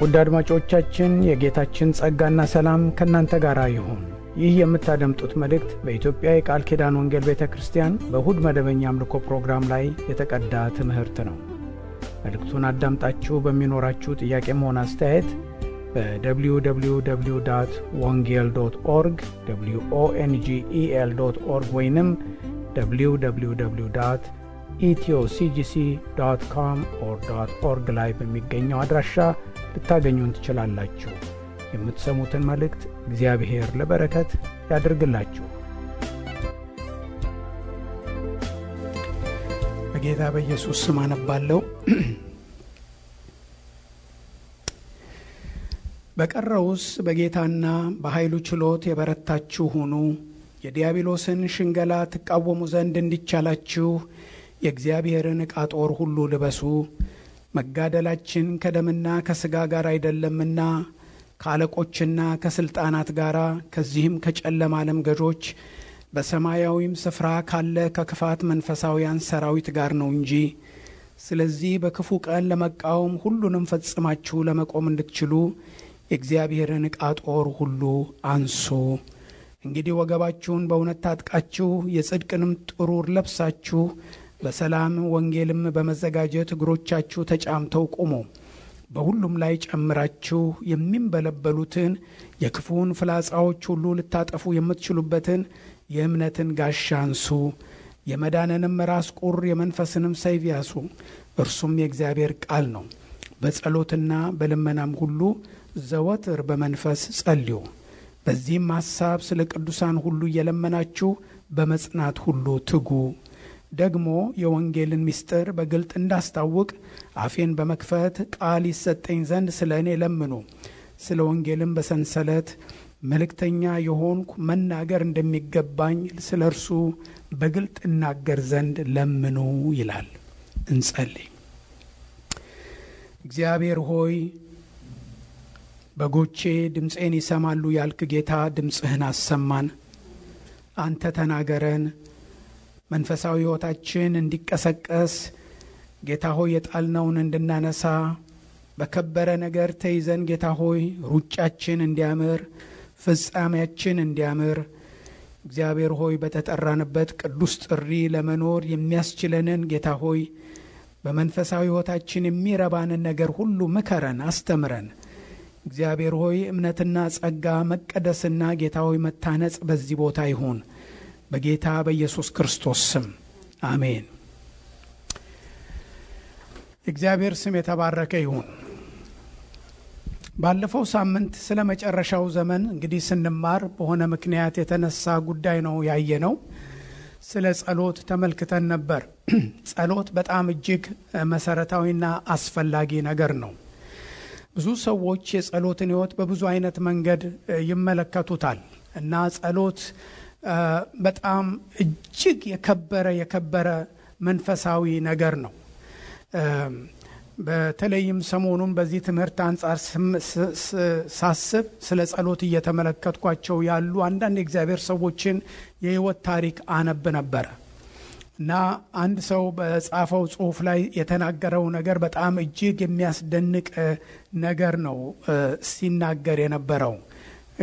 ውድ አድማጮቻችን የጌታችን ጸጋና ሰላም ከናንተ ጋር ይሁን። ይህ የምታደምጡት መልእክት በኢትዮጵያ የቃል ኪዳን ወንጌል ቤተክርስቲያን በእሁድ መደበኛ አምልኮ ፕሮግራም ላይ የተቀዳ ትምህርት ነው። መልእክቱን አዳምጣችሁ በሚኖራችሁ ጥያቄም ሆነ አስተያየት በwww.wongel.org wongel.org ወይንም www.ethioCGC.com/org ላይ በሚገኘው አድራሻ ልታገኙን ትችላላችሁ። የምትሰሙትን መልእክት እግዚአብሔር ለበረከት ያድርግላችሁ። በጌታ በኢየሱስ ስም አነባለሁ። በቀረውስ በጌታና በኃይሉ ችሎት የበረታችሁ ሁኑ። የዲያብሎስን ሽንገላ ትቃወሙ ዘንድ እንዲቻላችሁ የእግዚአብሔርን ዕቃ ጦር ሁሉ ልበሱ። መጋደላችን ከደምና ከሥጋ ጋር አይደለምና ከአለቆችና ከሥልጣናት ጋር ከዚህም ከጨለማ ዓለም ገዦች በሰማያዊም ስፍራ ካለ ከክፋት መንፈሳውያን ሰራዊት ጋር ነው እንጂ። ስለዚህ በክፉ ቀን ለመቃወም ሁሉንም ፈጽማችሁ ለመቆም እንድትችሉ የእግዚአብሔርን ዕቃ ጦር ሁሉ አንሱ። እንግዲህ ወገባችሁን በእውነት ታጥቃችሁ የጽድቅንም ጥሩር ለብሳችሁ በሰላም ወንጌልም በመዘጋጀት እግሮቻችሁ ተጫምተው ቁሙ። በሁሉም ላይ ጨምራችሁ የሚንበለበሉትን የክፉን ፍላጻዎች ሁሉ ልታጠፉ የምትችሉበትን የእምነትን ጋሻ አንሱ። የመዳንንም ራስ ቁር የመንፈስንም ሰይፍ ያዙ፣ እርሱም የእግዚአብሔር ቃል ነው። በጸሎትና በልመናም ሁሉ ዘወትር በመንፈስ ጸልዩ። በዚህም ሐሳብ ስለ ቅዱሳን ሁሉ እየለመናችሁ በመጽናት ሁሉ ትጉ። ደግሞ የወንጌልን ምስጢር በግልጥ እንዳስታውቅ አፌን በመክፈት ቃል ይሰጠኝ ዘንድ ስለ እኔ ለምኑ። ስለ ወንጌልም በሰንሰለት መልእክተኛ የሆንኩ መናገር እንደሚገባኝ ስለ እርሱ በግልጥ እናገር ዘንድ ለምኑ ይላል። እንጸልይ። እግዚአብሔር ሆይ በጎቼ ድምፄን ይሰማሉ ያልክ ጌታ ድምፅህን አሰማን። አንተ ተናገረን። መንፈሳዊ ሕይወታችን እንዲቀሰቀስ ጌታ ሆይ የጣልነውን እንድናነሳ በከበረ ነገር ተይዘን ጌታ ሆይ ሩጫችን እንዲያምር ፍጻሜያችን እንዲያምር እግዚአብሔር ሆይ በተጠራንበት ቅዱስ ጥሪ ለመኖር የሚያስችለንን ጌታ ሆይ በመንፈሳዊ ሕይወታችን የሚረባንን ነገር ሁሉ ምከረን፣ አስተምረን። እግዚአብሔር ሆይ እምነትና ጸጋ መቀደስና ጌታ ሆይ መታነጽ በዚህ ቦታ ይሁን በጌታ በኢየሱስ ክርስቶስ ስም አሜን። እግዚአብሔር ስም የተባረከ ይሁን። ባለፈው ሳምንት ስለ መጨረሻው ዘመን እንግዲህ ስንማር በሆነ ምክንያት የተነሳ ጉዳይ ነው ያየነው። ስለ ጸሎት ተመልክተን ነበር። ጸሎት በጣም እጅግ መሰረታዊና አስፈላጊ ነገር ነው። ብዙ ሰዎች የጸሎትን ሕይወት በብዙ አይነት መንገድ ይመለከቱታል እና ጸሎት በጣም እጅግ የከበረ መንፈሳዊ ነገር ነው። በተለይም ሰሞኑን በዚህ ትምህርት አንጻር ሳስብ ስለ ጸሎት እየተመለከትኳቸው ያሉ አንዳንድ የእግዚአብሔር ሰዎችን የሕይወት ታሪክ አነብ ነበር እና አንድ ሰው በጻፈው ጽሑፍ ላይ የተናገረው ነገር በጣም እጅግ የሚያስደንቅ ነገር ነው ሲናገር የነበረው።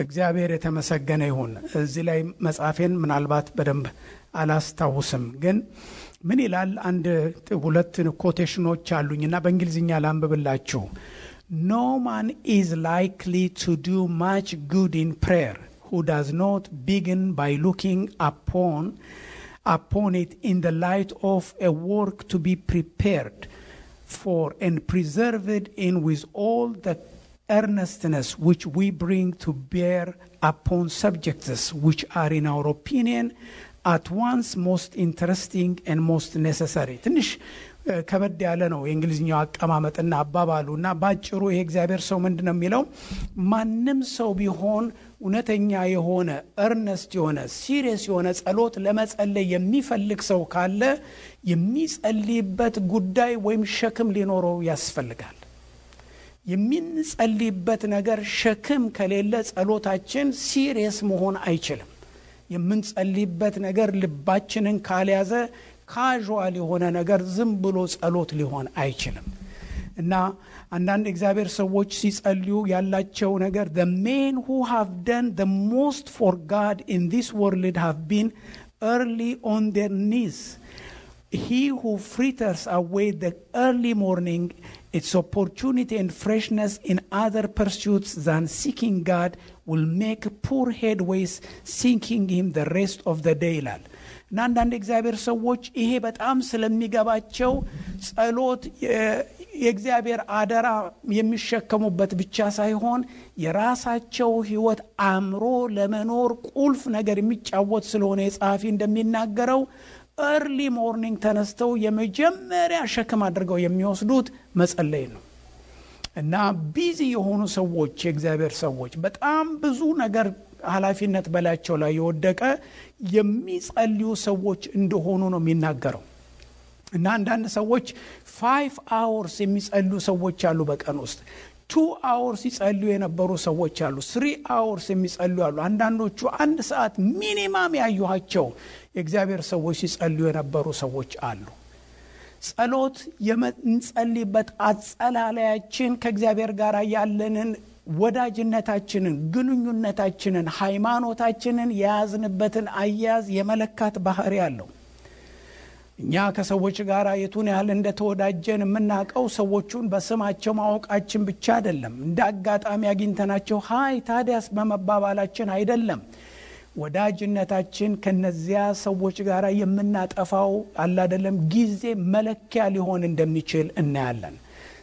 እግዚአብሔር የተመሰገነ ይሁን። እዚህ ላይ መጻፌን ምናልባት በደንብ አላስታውስም፣ ግን ምን ይላል? አንድ ሁለት ኮቴሽኖች አሉኝና በእንግሊዝኛ ላንብብላችሁ። No man is likely to do much good in prayer who does not begin by looking upon it in the light of a work to be prepared for and preserved in with all the earnestness which we bring to bear upon subjects which are in our opinion at once most interesting and most necessary. ትንሽ ከበድ ያለ ነው የእንግሊዝኛው አቀማመጥና አባባሉና ባጭሩ ይሄ እግዚአብሔር ሰው ምንድነው የሚለው? ማንም ሰው ቢሆን እውነተኛ የሆነ earnest የሆነ serious የሆነ ጸሎት ለመጸለይ የሚፈልግ ሰው ካለ የሚጸልይበት ጉዳይ ወይም ሸክም ሊኖረው ያስፈልጋል። የምንጸልይበት ነገር ሸክም ከሌለ ጸሎታችን ሲሪየስ መሆን አይችልም። የምንጸልይበት ነገር ልባችንን ካልያዘ ካዥዋል የሆነ ነገር ዝም ብሎ ጸሎት ሊሆን አይችልም። እና አንዳንድ እግዚአብሔር ሰዎች ሲጸልዩ ያላቸው ነገር the men who have done the most for God in this world have been early on their knees. He who fritters away the early morning, its opportunity and freshness in other pursuits than seeking God, will make poor headways seeking him the rest of the day. እና አንዳንድ እግዚአብሔር ሰዎች ይሄ በጣም ስለሚገባቸው ጸሎት የእግዚአብሔር አደራ የሚሸከሙበት ብቻ ሳይሆን የራሳቸው ሕይወት አምሮ ለመኖር ቁልፍ ነገር የሚጫወት ስለሆነ የጻፊ እንደሚናገረው early morning ተነስተው የመጀመሪያ ሸክም አድርገው የሚወስዱት መጸለይ ነው። እና ቢዚ የሆኑ ሰዎች የእግዚአብሔር ሰዎች በጣም ብዙ ነገር ኃላፊነት በላቸው ላይ የወደቀ የሚጸልዩ ሰዎች እንደሆኑ ነው የሚናገረው። እና አንዳንድ ሰዎች 5 hours የሚጸልዩ ሰዎች አሉ በቀን ውስጥ 2 hours ይጸልዩ የነበሩ ሰዎች አሉ 3 hours የሚጸልዩ አሉ። አንዳንዶቹ 1 ሰዓት ሚኒማም ያዩሃቸው የእግዚአብሔር ሰዎች ሲጸልዩ የነበሩ ሰዎች አሉ። ጸሎት የምንጸልይበት አጸላለያችን ከእግዚአብሔር ጋር ያለንን ወዳጅነታችንን ግንኙነታችንን ሃይማኖታችንን የያዝንበትን አያያዝ የመለካት ባህሪ አለው። እኛ ከሰዎች ጋር የቱን ያህል እንደተወዳጀን የምናውቀው ሰዎቹን በስማቸው ማወቃችን ብቻ አይደለም። እንደ አጋጣሚ አግኝተናቸው ሃይ ታዲያስ በመባባላችን አይደለም። ወዳጅነታችን ከነዚያ ሰዎች ጋር የምናጠፋው አይደለም ጊዜ መለኪያ ሊሆን እንደሚችል እናያለን።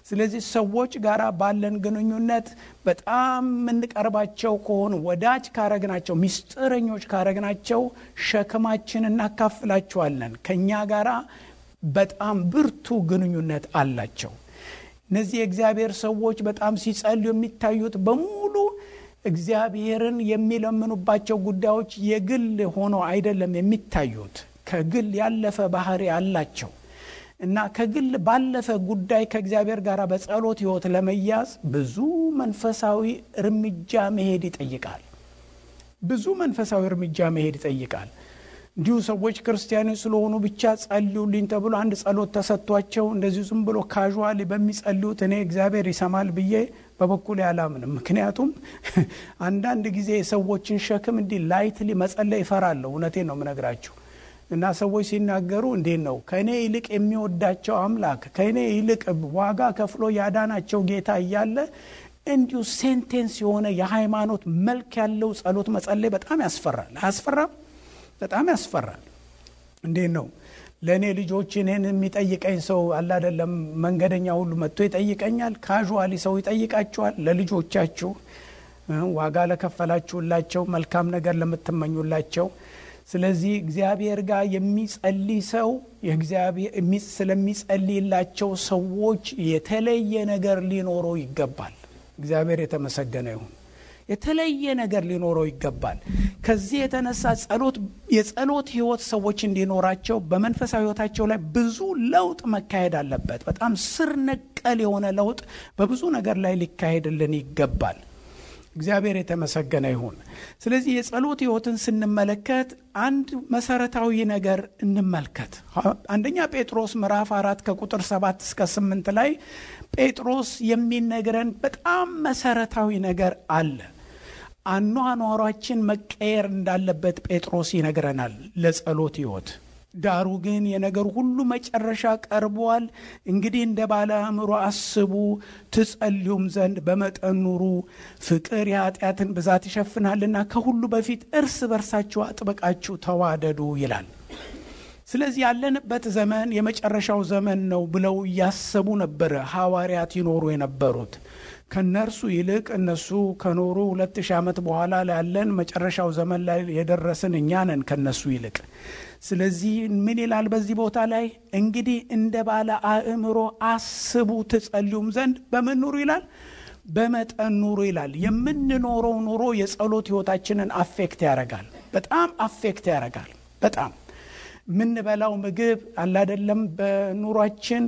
ስለዚህ ሰዎች ጋር ባለን ግንኙነት በጣም እንቀርባቸው ከሆነ ወዳጅ ካረግናቸው ሚስጥረኞች ካረግናቸው ሸክማችንን እናካፍላቸዋለን። ከኛ ጋር በጣም ብርቱ ግንኙነት አላቸው። እነዚህ የእግዚአብሔር ሰዎች በጣም ሲጸልዩ የሚታዩት በሙሉ እግዚአብሔርን የሚለምኑባቸው ጉዳዮች የግል ሆኖ አይደለም የሚታዩት፣ ከግል ያለፈ ባህሪ አላቸው። እና ከግል ባለፈ ጉዳይ ከእግዚአብሔር ጋር በጸሎት ሕይወት ለመያዝ ብዙ መንፈሳዊ እርምጃ መሄድ ይጠይቃል። ብዙ መንፈሳዊ እርምጃ መሄድ ይጠይቃል። እንዲሁ ሰዎች ክርስቲያኖች ስለሆኑ ብቻ ጸልዩልኝ ተብሎ አንድ ጸሎት ተሰጥቷቸው እንደዚህ ዝም ብሎ ካዡዋሊ በሚጸልዩት እኔ እግዚአብሔር ይሰማል ብዬ በበኩሌ አላምንም። ምክንያቱም አንዳንድ ጊዜ ሰዎችን ሸክም እንዲህ ላይትሊ መጸለይ ይፈራሉ። እውነቴን ነው የምነግራችሁ። እና ሰዎች ሲናገሩ እንዴት ነው ከኔ ይልቅ የሚወዳቸው አምላክ ከኔ ይልቅ ዋጋ ከፍሎ ያዳናቸው ጌታ እያለ እንዲሁ ሴንቴንስ የሆነ የሃይማኖት መልክ ያለው ጸሎት መጸለይ በጣም ያስፈራል። አያስፈራም? በጣም ያስፈራል። እንዴት ነው ለኔ ልጆች እኔን የሚጠይቀኝ ሰው አለ አይደለም መንገደኛ ሁሉ መጥቶ ይጠይቀኛል። ካዡዋሊ ሰው ይጠይቃቸዋል። ለልጆቻችሁ ዋጋ ለከፈላችሁላቸው መልካም ነገር ለምትመኙላቸው። ስለዚህ እግዚአብሔር ጋር የሚጸልይ ሰው የእግዚአብሔር ስለሚጸልይላቸው ሰዎች የተለየ ነገር ሊኖረው ይገባል። እግዚአብሔር የተመሰገነ ይሁን። የተለየ ነገር ሊኖረው ይገባል። ከዚህ የተነሳ የጸሎት ሕይወት ሰዎች እንዲኖራቸው በመንፈሳዊ ሕይወታቸው ላይ ብዙ ለውጥ መካሄድ አለበት። በጣም ስር ነቀል የሆነ ለውጥ በብዙ ነገር ላይ ሊካሄድልን ይገባል። እግዚአብሔር የተመሰገነ ይሁን። ስለዚህ የጸሎት ሕይወትን ስንመለከት አንድ መሰረታዊ ነገር እንመልከት። አንደኛ ጴጥሮስ ምዕራፍ 4 ከቁጥር 7 እስከ 8 ላይ ጴጥሮስ የሚነግረን በጣም መሰረታዊ ነገር አለ። አኗኗራችን መቀየር እንዳለበት ጴጥሮስ ይነግረናል ለጸሎት ሕይወት። ዳሩ ግን የነገር ሁሉ መጨረሻ ቀርቧል። እንግዲህ እንደ ባለ አእምሮ አስቡ፣ ትጸልዩም ዘንድ በመጠን ኑሩ። ፍቅር የኃጢአትን ብዛት ይሸፍናልና ከሁሉ በፊት እርስ በርሳችሁ አጥብቃችሁ ተዋደዱ ይላል። ስለዚህ ያለንበት ዘመን የመጨረሻው ዘመን ነው ብለው እያሰቡ ነበር ሐዋርያት ይኖሩ የነበሩት። ከነርሱ ይልቅ እነሱ ከኖሩ 2000 ዓመት በኋላ ያለን መጨረሻው ዘመን ላይ የደረስን እኛ ነን ከነሱ ይልቅ። ስለዚህ ምን ይላል በዚህ ቦታ ላይ? እንግዲህ እንደ ባለ አእምሮ አስቡ፣ ትጸልዩም ዘንድ በምን ኑሩ ይላል? በመጠን ኑሩ ይላል። የምንኖረው ኑሮ የጸሎት ሕይወታችንን አፌክት ያደርጋል። በጣም አፌክት ያደርጋል። በጣም ምንበላው ምግብ አለ አይደለም በኑሯችን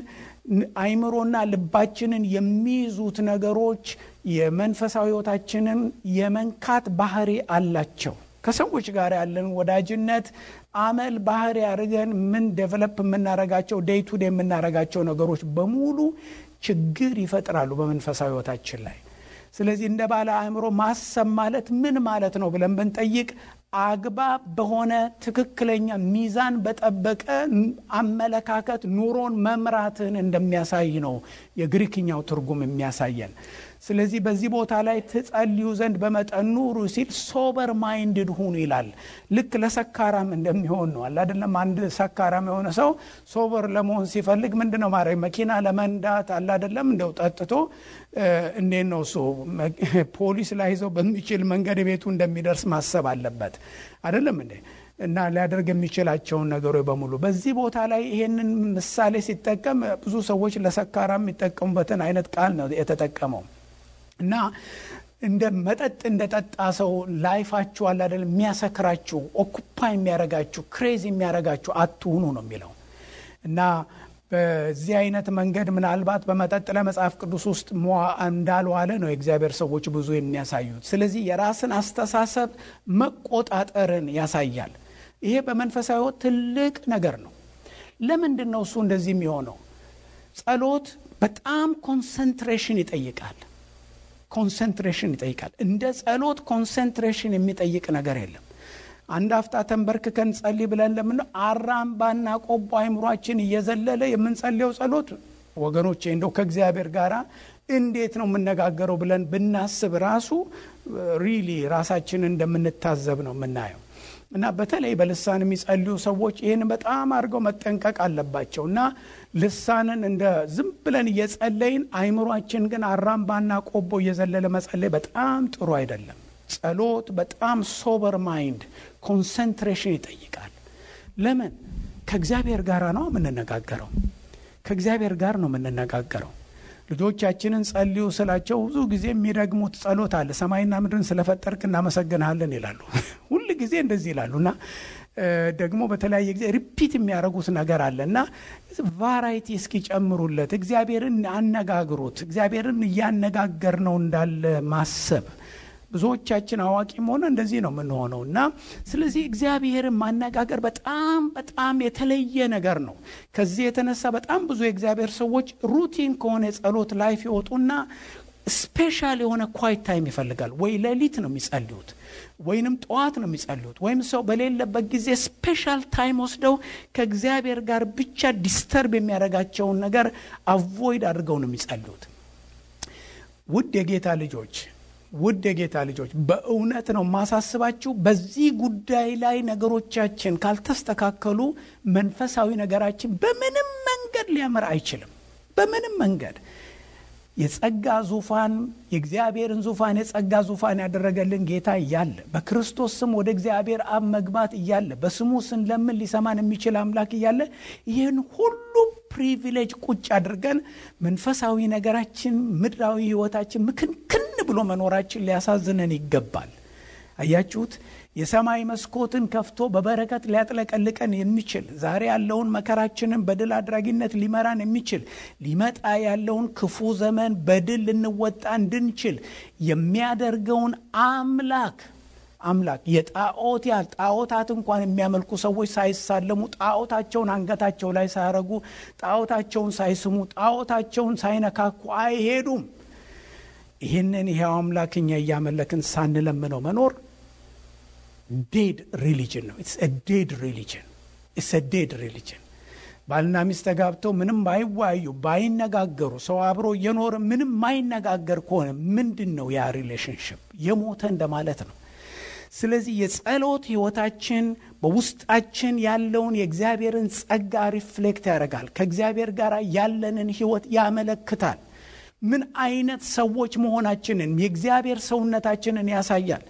አይምሮና ልባችንን የሚይዙት ነገሮች የመንፈሳዊ ሕይወታችንን የመንካት ባህሪ አላቸው። ከሰዎች ጋር ያለን ወዳጅነት አመል ባህሪ አድርገን ምን ዴቨሎፕ የምናረጋቸው ዴይ ቱ ዴይ የምናረጋቸው ነገሮች በሙሉ ችግር ይፈጥራሉ በመንፈሳዊ ህይወታችን ላይ። ስለዚህ እንደ ባለ አእምሮ ማሰብ ማለት ምን ማለት ነው ብለን ብንጠይቅ አግባብ በሆነ ትክክለኛ ሚዛን በጠበቀ አመለካከት ኑሮን መምራትን እንደሚያሳይ ነው የግሪክኛው ትርጉም የሚያሳየን። ስለዚህ በዚህ ቦታ ላይ ትጸልዩ ዘንድ በመጠን ኑሩ ሲል ሶበር ማይንድድ ሁኑ ይላል። ልክ ለሰካራም እንደሚሆን ነው አይደለም? አንድ ሰካራም የሆነ ሰው ሶበር ለመሆን ሲፈልግ ምንድነው ማድረግ? መኪና ለመንዳት አይደለም እንደው ጠጥቶ እንዴት ነው እሱ ፖሊስ ላይ ይዘው በሚችል መንገድ ቤቱ እንደሚደርስ ማሰብ አለበት አይደለም እንዴ? እና ሊያደርግ የሚችላቸውን ነገሮች በሙሉ በዚህ ቦታ ላይ ይሄንን ምሳሌ ሲጠቀም ብዙ ሰዎች ለሰካራም የሚጠቀሙበትን አይነት ቃል ነው የተጠቀመው። እና እንደ መጠጥ እንደጠጣ ሰው ላይፋችሁ አለ አይደል የሚያሰክራችሁ ኦኩፓይ የሚያረጋችሁ ክሬዚ የሚያረጋችሁ አትሁኑ ነው የሚለው። እና በዚህ አይነት መንገድ ምናልባት በመጠጥ ለመጽሐፍ ቅዱስ ውስጥ እንዳልዋለ ነው የእግዚአብሔር ሰዎች ብዙ የሚያሳዩት። ስለዚህ የራስን አስተሳሰብ መቆጣጠርን ያሳያል። ይሄ በመንፈሳዊ ሕይወት ትልቅ ነገር ነው። ለምንድን ነው እሱ እንደዚህ የሚሆነው? ጸሎት በጣም ኮንሰንትሬሽን ይጠይቃል። ኮንሰንትሬሽን ይጠይቃል። እንደ ጸሎት ኮንሰንትሬሽን የሚጠይቅ ነገር የለም። አንድ አፍታ ተንበርክከን ጸልይ ብለን ለምን አራምባና ቆቦ አይምሯችን እየዘለለ የምንጸልየው ጸሎት ወገኖቼ እንደው ከእግዚአብሔር ጋር እንዴት ነው የምነጋገረው ብለን ብናስብ ራሱ ሪሊ ራሳችንን እንደምንታዘብ ነው የምናየው። እና በተለይ በልሳን የሚጸልዩ ሰዎች ይህን በጣም አድርገው መጠንቀቅ አለባቸው። እና ልሳንን እንደ ዝም ብለን እየጸለይን አይምሯችን ግን አራምባና ቆቦ እየዘለለ መጸለይ በጣም ጥሩ አይደለም። ጸሎት በጣም ሶበር ማይንድ ኮንሰንትሬሽን ይጠይቃል። ለምን? ከእግዚአብሔር ጋር ነው የምንነጋገረው። ከእግዚአብሔር ጋር ነው የምንነጋገረው። ልጆቻችንን ጸልዩ ስላቸው ብዙ ጊዜ የሚረግሙት ጸሎት አለ። ሰማይና ምድርን ስለፈጠርክ እናመሰግናለን ይላሉ። ሁሉ ጊዜ እንደዚህ ይላሉና ደግሞ በተለያየ ጊዜ ሪፒት የሚያደርጉት ነገር አለና ቫራይቲ እስኪጨምሩለት እግዚአብሔርን አነጋግሩት። እግዚአብሔርን እያነጋገር ነው እንዳለ ማሰብ ብዙዎቻችን አዋቂም ሆነ እንደዚህ ነው የምንሆነውና ስለዚህ እግዚአብሔርን ማነጋገር በጣም በጣም የተለየ ነገር ነው። ከዚህ የተነሳ በጣም ብዙ የእግዚአብሔር ሰዎች ሩቲን ከሆነ የጸሎት ላይፍ ይወጡና ስፔሻል የሆነ ኳይት ታይም ይፈልጋል። ወይ ሌሊት ነው የሚጸልዩት ወይንም ጠዋት ነው የሚጸልዩት ወይም ሰው በሌለበት ጊዜ ስፔሻል ታይም ወስደው ከእግዚአብሔር ጋር ብቻ ዲስተርብ የሚያደርጋቸውን ነገር አቮይድ አድርገው ነው የሚጸልዩት። ውድ የጌታ ልጆች በእውነት ነው ማሳስባችሁ። በዚህ ጉዳይ ላይ ነገሮቻችን ካልተስተካከሉ መንፈሳዊ ነገራችን በምንም መንገድ ሊያመራ አይችልም። በምንም መንገድ የጸጋ ዙፋን የእግዚአብሔርን ዙፋን የጸጋ ዙፋን ያደረገልን ጌታ እያለ በክርስቶስ ስም ወደ እግዚአብሔር አብ መግባት እያለ በስሙ ስንለምን ሊሰማን የሚችል አምላክ እያለ ይህን ሁሉ ፕሪቪሌጅ ቁጭ አድርገን መንፈሳዊ ነገራችን ምድራዊ ህይወታችን ምክንክን ብሎ መኖራችን ሊያሳዝነን ይገባል። አያችሁት? የሰማይ መስኮትን ከፍቶ በበረከት ሊያጥለቀልቀን የሚችል ዛሬ ያለውን መከራችንን በድል አድራጊነት ሊመራን የሚችል ሊመጣ ያለውን ክፉ ዘመን በድል ልንወጣ እንድንችል የሚያደርገውን አምላክ ጣዖታት እንኳን የሚያመልኩ ሰዎች ሳይሳለሙ ጣዖታቸውን አንገታቸው ላይ ሳያረጉ ጣዖታቸውን ሳይስሙ ጣዖታቸውን ሳይነካኩ አይሄዱም። ይህንን ይሄው አምላክኛ እያመለክን ሳንለምነው መኖር ዴድ ሪሊጅን ነው። ኢትስ አ ዴድ ሪሊጅን። ባልና ሚስት ተጋብተው ምንም ባይዋዩ ባይነጋገሩ ሰው አብሮ እየኖረ ምንም ማይነጋገር ከሆነ ምንድነው ያ ሪሌሽንሺፕ? የሞተ እንደማለት ነው። ስለዚህ የጸሎት ህይወታችን በውስጣችን ያለውን የእግዚአብሔርን ጸጋ ሪፍሌክት ያደርጋል። ከእግዚአብሔር ጋር ያለንን ህይወት ያመለክታል። ምን አይነት ሰዎች መሆናችንን የእግዚአብሔር ሰውነታችንን ያሳያል።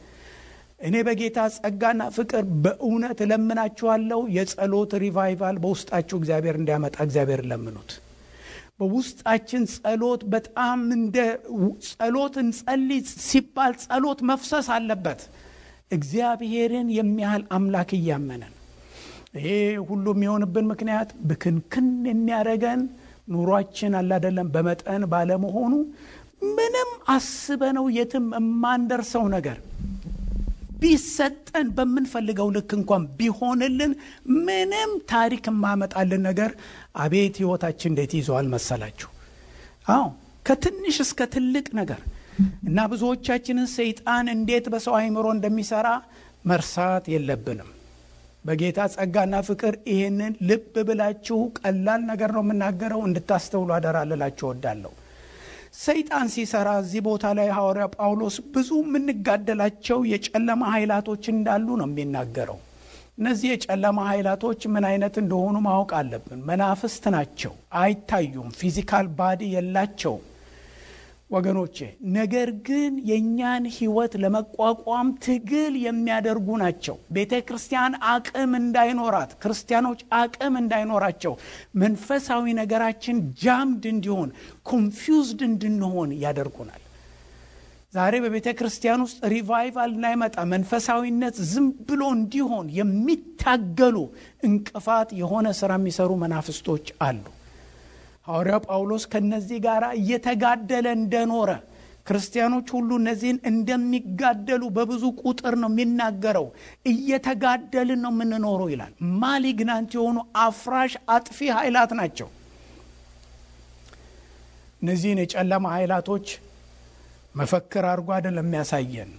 እኔ በጌታ ጸጋና ፍቅር በእውነት ለምናችኋለሁ የጸሎት ሪቫይቫል በውስጣችሁ እግዚአብሔር እንዲያመጣ እግዚአብሔር ለምኑት። በውስጣችን ጸሎት በጣም እንደ ጸሎት እንጸልይ ሲባል ጸሎት መፍሰስ አለበት። እግዚአብሔርን የሚያህል አምላክ እያመነን ይሄ ሁሉ የሚሆንብን ምክንያት ብክንክን የሚያደርገን ኑሯችን አይደለም በመጠን ባለመሆኑ ምንም አስበነው የትም የማንደርሰው ነገር ቢሰጠን በምንፈልገው ልክ እንኳን ቢሆንልን ምንም ታሪክ ማመጣልን ነገር አቤት ህይወታችን እንዴት ይዟል መሰላችሁ? አዎ ከትንሽ እስከ ትልቅ ነገር እና ብዙዎቻችንን ሰይጣን እንዴት በሰው አይምሮ እንደሚሰራ መርሳት የለብንም። በጌታ ጸጋና ፍቅር ይሄንን ልብ ብላችሁ ቀላል ነገር ነው የምናገረው እንድታስተውሉ አደራላችሁ እወዳለሁ። ሰይጣን ሲሰራ እዚህ ቦታ ላይ ሐዋርያ ጳውሎስ ብዙ የምንጋደላቸው የጨለማ ኃይላቶች እንዳሉ ነው የሚናገረው። እነዚህ የጨለማ ኃይላቶች ምን አይነት እንደሆኑ ማወቅ አለብን። መናፍስት ናቸው፣ አይታዩም፣ ፊዚካል ባዲ የላቸውም ወገኖቼ። ነገር ግን የኛን ህይወት ለመቋቋም ትግል የሚያደርጉ ናቸው። ቤተክርስቲያን አቅም እንዳይኖራት፣ ክርስቲያኖች አቅም እንዳይኖራቸው፣ መንፈሳዊ ነገራችን ጃምድ እንዲሆን፣ ኮንፊውዝድ እንድንሆን ያደርጉናል። ዛሬ በቤተክርስቲያን ውስጥ ሪቫይቫል እንዳይመጣ፣ መንፈሳዊነት ዝም ብሎ እንዲሆን የሚታገሉ እንቅፋት የሆነ ስራ የሚሰሩ መናፍስቶች አሉ። ሐዋርያው ጳውሎስ ከነዚህ ጋር እየተጋደለ እንደኖረ ክርስቲያኖች ሁሉ እነዚህን እንደሚጋደሉ በብዙ ቁጥር ነው የሚናገረው። እየተጋደልን ነው የምንኖረው ይላል። ማሊግናንት የሆኑ አፍራሽ አጥፊ ኃይላት ናቸው። እነዚህን የጨለማ ኃይላቶች መፈክር አድርጎ አይደለም የሚያሳየን፣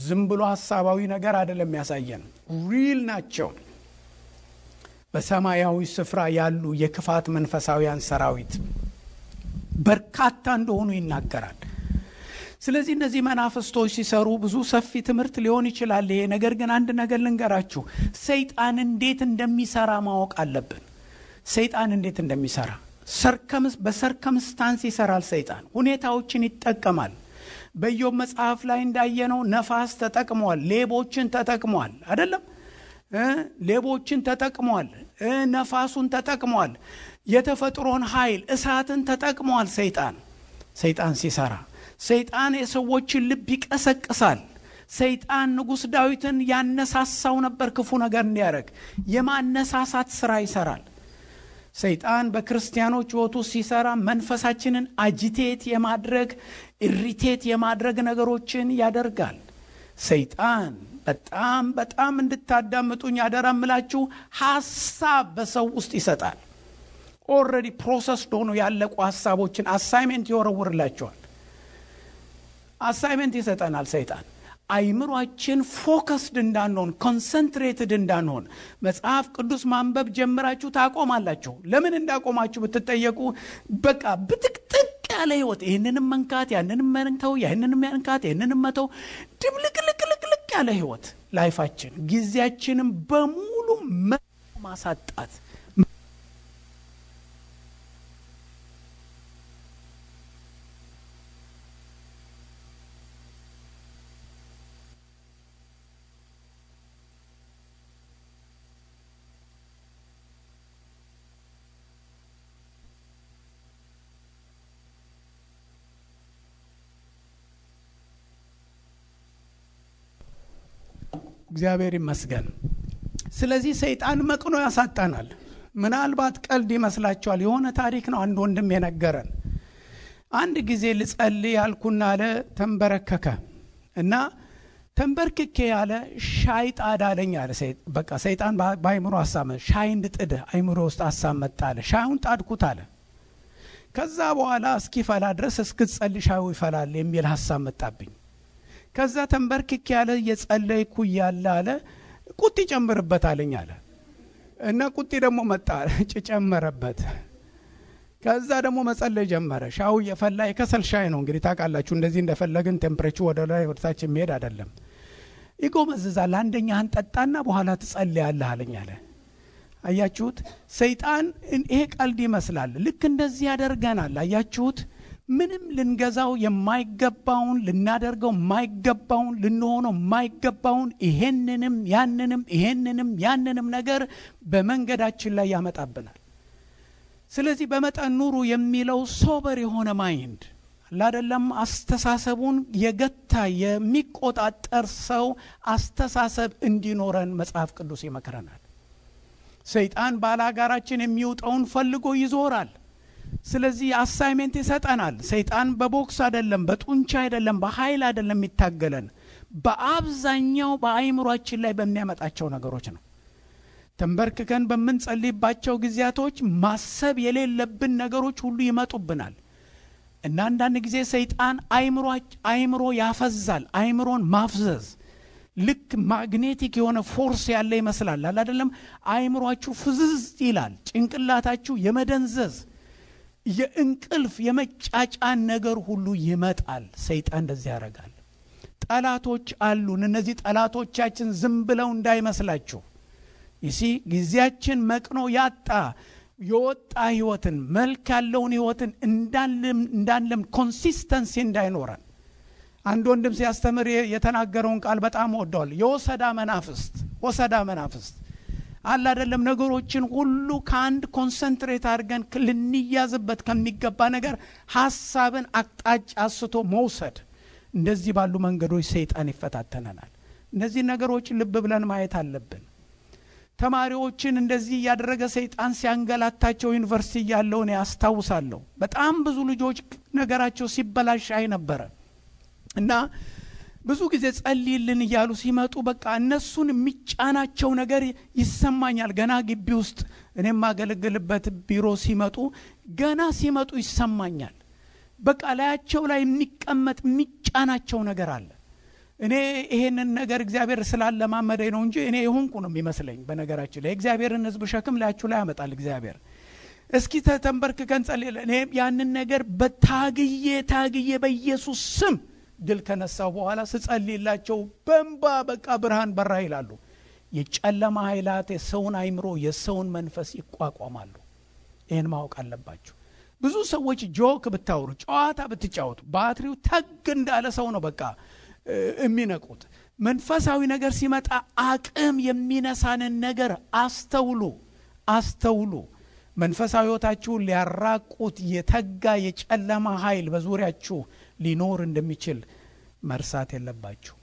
ዝም ብሎ ሐሳባዊ ነገር አይደለም የሚያሳየን፣ ሪል ናቸው። በሰማያዊ ስፍራ ያሉ የክፋት መንፈሳውያን ሰራዊት በርካታ እንደሆኑ ይናገራል። ስለዚህ እነዚህ መናፍስቶች ሲሰሩ ብዙ ሰፊ ትምህርት ሊሆን ይችላል ይሄ ነገር። ግን አንድ ነገር ልንገራችሁ፣ ሰይጣን እንዴት እንደሚሰራ ማወቅ አለብን። ሰይጣን እንዴት እንደሚሰራ በሰርከምስታንስ ይሰራል። ሰይጣን ሁኔታዎችን ይጠቀማል። በኢዮብ መጽሐፍ ላይ እንዳየነው ነፋስ ተጠቅሟል፣ ሌቦችን ተጠቅሟል አይደለም? ሌቦችን ተጠቅሟል፣ ነፋሱን ተጠቅሟል፣ የተፈጥሮን ኃይል እሳትን ተጠቅሟል። ሰይጣን ሲሰራ ሰይጣን የሰዎችን ልብ ይቀሰቅሳል። ሰይጣን ንጉሥ ዳዊትን ያነሳሳው ነበር ክፉ ነገር እንዲያደርግ። የማነሳሳት ስራ ይሰራል። ሰይጣን በክርስቲያኖች ሕይወት ውስጥ ሲሰራ መንፈሳችንን አጂቴት የማድረግ ኢሪቴት የማድረግ ነገሮችን ያደርጋል። ሰይጣን በጣም እንድታዳምጡኝ ያደራምላችሁ ሐሳብ በሰው ውስጥ ይሰጣል። ኦልሬዲ ፕሮሰስ ሆኖ ያለቁ ሐሳቦችን አሳይመንት ይወረውርላችኋል። አሳይመንት ይሰጠናል ሰይጣን። አይምሮአችን ፎከስድ እንዳንሆን፣ ኮንሰንትሬትድ እንዳንሆን። መጽሐፍ ቅዱስ ማንበብ ጀምራችሁ ታቆማላችሁ። ለምን እንዳቆማችሁ ብትጠየቁ በቃ ብትቅጥቅ ያለ ህይወት፣ ይህንንም መንካት ያንንም መንተው፣ ያንንም መንካት ያንንም መተው፣ ድብልቅልቅልቅ ያለ ህይወት ላይፋችን፣ ጊዜያችንን በሙሉ ማሳጣት። እግዚአብሔር ይመስገን። ስለዚህ ሰይጣን መቅኖ ያሳጣናል። ምናልባት ቀልድ ይመስላችኋል። የሆነ ታሪክ ነው አንድ ወንድም የነገረን። አንድ ጊዜ ልጸልይ ያልኩና አለ ተንበረከከ እና ተንበርክኬ ያለ ሻይ ጣድ አለኝ አለ። በቃ ሰይጣን በአይምሮ አሳመ። ሻይ እንድጥድ አይምሮ ውስጥ አሳመጣ አለ። ሻዩን ጣድኩት አለ። ከዛ በኋላ እስኪፈላ ድረስ እስክጸልይ ሻዩ ይፈላል የሚል ሐሳብ መጣብኝ። ከዛ ተንበርክኬ ያለ የጸለይኩ ያለ አለ ቁጥ ጨምርበት አለኝ አለ እና ቁጥ ደግሞ መጣ ጨመረበት። ከዛ ደግሞ መጸለይ ጀመረ። ሻው የፈላ የከሰል ሻይ ነው እንግዲህ ታውቃላችሁ። እንደዚህ እንደፈለግን ቴምፕሬቸር ወደ ላይ ወደ ታች የሚሄድ አይደለም። ይጎመዝዛል። አንደኛህን ጠጣና በኋላ ትጸልያለህ አለኝ አለ። አያችሁት? ሰይጣን ይሄ ቀልድ ይመስላል። ልክ እንደዚህ ያደርገናል። አያችሁት? ምንም ልንገዛው የማይገባውን፣ ልናደርገው የማይገባውን፣ ልንሆነው የማይገባውን ይሄንንም ያንንም ነገር በመንገዳችን ላይ ያመጣብናል። ስለዚህ በመጠን ኑሩ የሚለው ሶበር የሆነ ማይንድ አይደለም። አስተሳሰቡን የገታ የሚቆጣጠር ሰው አስተሳሰብ እንዲኖረን መጽሐፍ ቅዱስ ይመክረናል። ሰይጣን ባላጋራችን የሚውጠውን ፈልጎ ይዞራል። ስለዚህ አሳይመንት ይሰጠናል። ሰይጣን በቦክስ አይደለም፣ በጡንቻ አይደለም፣ በኃይል አይደለም የሚታገለን፣ በአብዛኛው በአይምሮአችን ላይ በሚያመጣቸው ነገሮች ነው። ተንበርክከን በምንጸልይባቸው ጊዜያቶች ማሰብ የሌለብን ነገሮች ሁሉ ይመጡብናል እና አንዳንድ ጊዜ ሰይጣን አይምሮ ያፈዛል። አይምሮን ማፍዘዝ ልክ ማግኔቲክ የሆነ ፎርስ ያለ ይመስላል አይደለም? አይምሮአችሁ ፍዝዝ ይላል። ጭንቅላታችሁ የመደንዘዝ የእንቅልፍ የመጫጫን ነገር ሁሉ ይመጣል። ሰይጣን እንደዚህ ያደርጋል። ጠላቶች አሉን። እነዚህ ጠላቶቻችን ዝም ብለው እንዳይመስላችሁ ጊዜያችን መቅኖ ያጣ የወጣ ህይወትን መልክ ያለውን ህይወትን እንዳንለም ኮንሲስተንሲ እንዳይኖረን አንድ ወንድም ሲያስተምር የተናገረውን ቃል በጣም ወደዋል። የወሰዳ መናፍስት አለ አይደለም? ነገሮችን ሁሉ ከአንድ ኮንሰንትሬት አድርገን ልንያዝበት ከሚገባ ነገር ሐሳብን አቅጣጫ አስቶ መውሰድ፣ እንደዚህ ባሉ መንገዶች ሰይጣን ይፈታተነናል። እነዚህ ነገሮች ልብ ብለን ማየት አለብን። ተማሪዎችን እንደዚህ ያደረገ ሰይጣን ሲያንገላታቸው ዩኒቨርሲቲ ያለው ነው ያስታውሳለሁ። በጣም ብዙ ልጆች ነገራቸው ሲበላሽ አይ ነበር እና ብዙ ጊዜ ጸልይልን እያሉ ሲመጡ በቃ እነሱን የሚጫናቸው ነገር ይሰማኛል። ገና ግቢ ውስጥ እኔም ማገለግልበት ቢሮ ሲመጡ ይሰማኛል። በቃ ላያቸው ላይ የሚቀመጥ የሚጫናቸው ነገር አለ። እኔ ይሄንን ነገር እግዚአብሔር ስላለማመደኝ ነው እንጂ እኔ የሆንኩ ነው የሚመስለኝ። በነገራችን ላይ እግዚአብሔርን ሕዝብ ሸክም ላያችሁ ላይ ያመጣል እግዚአብሔር። እስኪ ተንበርክከን ጸልይ። እኔ ያንን ነገር ታግዬ በኢየሱስ ስም ድል ከነሳው በኋላ ስጸልይላቸው በእንባ በቃ ብርሃን በራ ይላሉ። የጨለማ ኃይላት የሰውን አይምሮ የሰውን መንፈስ ይቋቋማሉ። ይሄን ማወቅ አለባችሁ። ብዙ ሰዎች ጆክ ብታወሩ ጨዋታ ብትጫወቱ ባትሪው ተግ እንዳለ ሰው ነው በቃ የሚነቁት። መንፈሳዊ ነገር ሲመጣ አቅም የሚነሳንን ነገር አስተውሉ። መንፈሳዊ ህይወታችሁን ሊያራቁት የተጋ የጨለማ ኃይል በዙሪያችሁ ሊኖር እንደሚችል መርሳት የለባችሁ።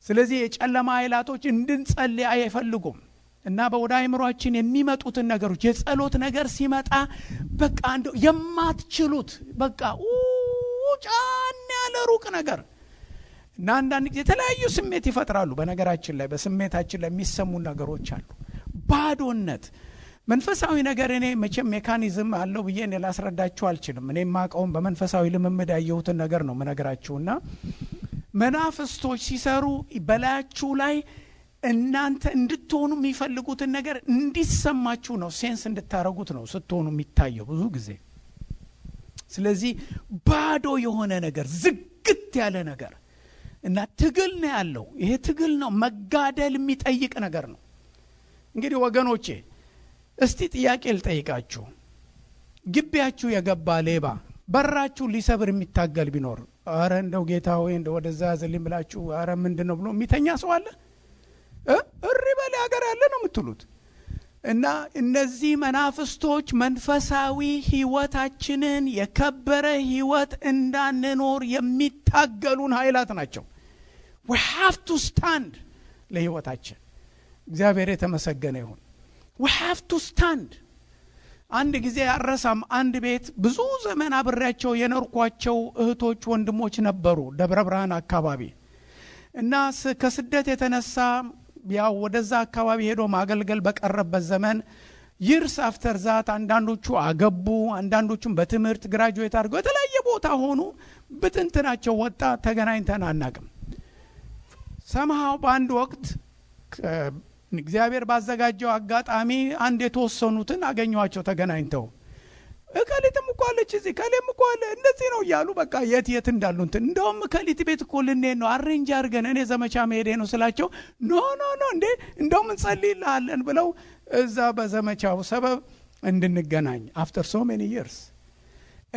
ስለዚህ የጨለማ ኃይላቶች እንድንጸልይ አይፈልጉም እና በወደ አይምሮአችን የሚመጡትን ነገሮች የጸሎት ነገር ሲመጣ በቃ እንደው የማትችሉት በቃ ጫን ያለ ሩቅ ነገር እና አንዳንድ ጊዜ የተለያዩ ስሜት ይፈጥራሉ። በነገራችን ላይ በስሜታችን ላይ የሚሰሙ ነገሮች አሉ። ባዶነት መንፈሳዊ ነገር እኔ መቼም ሜካኒዝም አለው ብዬ እኔ ላስረዳችሁ አልችልም። እኔ ማቀውም በመንፈሳዊ ልምምድ ያየሁትን ነገር ነው መነግራችሁና መናፍስቶች ሲሰሩ በላያችሁ ላይ እናንተ እንድትሆኑ የሚፈልጉትን ነገር እንዲሰማችሁ ነው፣ ሴንስ እንድታረጉት ነው ስትሆኑ የሚታየው ብዙ ጊዜ። ስለዚህ ባዶ የሆነ ነገር ዝግት ያለ ነገር እና ትግል ነው ያለው። ይሄ ትግል ነው፣ መጋደል የሚጠይቅ ነገር ነው። እንግዲህ ወገኖቼ እስቲ ጥያቄ ልጠይቃችሁ። ግቢያችሁ የገባ ሌባ በራችሁ ሊሰብር የሚታገል ቢኖር አረ እንደው ጌታ ሆይ እንደው ወደዛ ያዘልኝ ብላችሁ አረ ምንድነው ብሎ የሚተኛ ሰው አለ? እሪ በል ሀገር ያለ ነው የምትሉት። እና እነዚህ መናፍስቶች መንፈሳዊ ህይወታችንን የከበረ ህይወት እንዳንኖር የሚታገሉን ኃይላት ናቸው። we have to stand ለህይወታችን። እግዚአብሔር የተመሰገነ ይሁን። we have to stand። አንድ ጊዜ አረሳም አንድ ቤት ብዙ ዘመን አብሬያቸው የኖርኳቸው እህቶች ወንድሞች ነበሩ ደብረ ብርሃን አካባቢ እና ከስደት የተነሳ ያው ወደዛ አካባቢ ሄዶ ማገልገል በቀረበት ዘመን ይርስ አፍተር ዛት አንዳንዶቹ አገቡ፣ አንዳንዶቹም በትምህርት ግራጁዌት አድርገው የተለያየ ቦታ ሆኑ። ብትንትናቸው ወጣ። ተገናኝተን አናቅም። ሰማው በአንድ ወቅት እግዚአብሔር ባዘጋጀው አጋጣሚ አንድ የተወሰኑትን አገኘዋቸው ተገናኝተው። እከሊትም እኮ አለች እዚህ ከሌም እኮ አለ እንደዚህ ነው እያሉ በቃ የት እንዳሉ እንትን እንደውም ከሊት ቤት እኮ ልንሄድ ነው አሬንጅ አድርገን እኔ ዘመቻ መሄዴ ነው ስላቸው ኖ እንዴ እንደውም እንጸልይልሃለን ብለው እዛ በዘመቻው ሰበብ እንድንገናኝ after so many years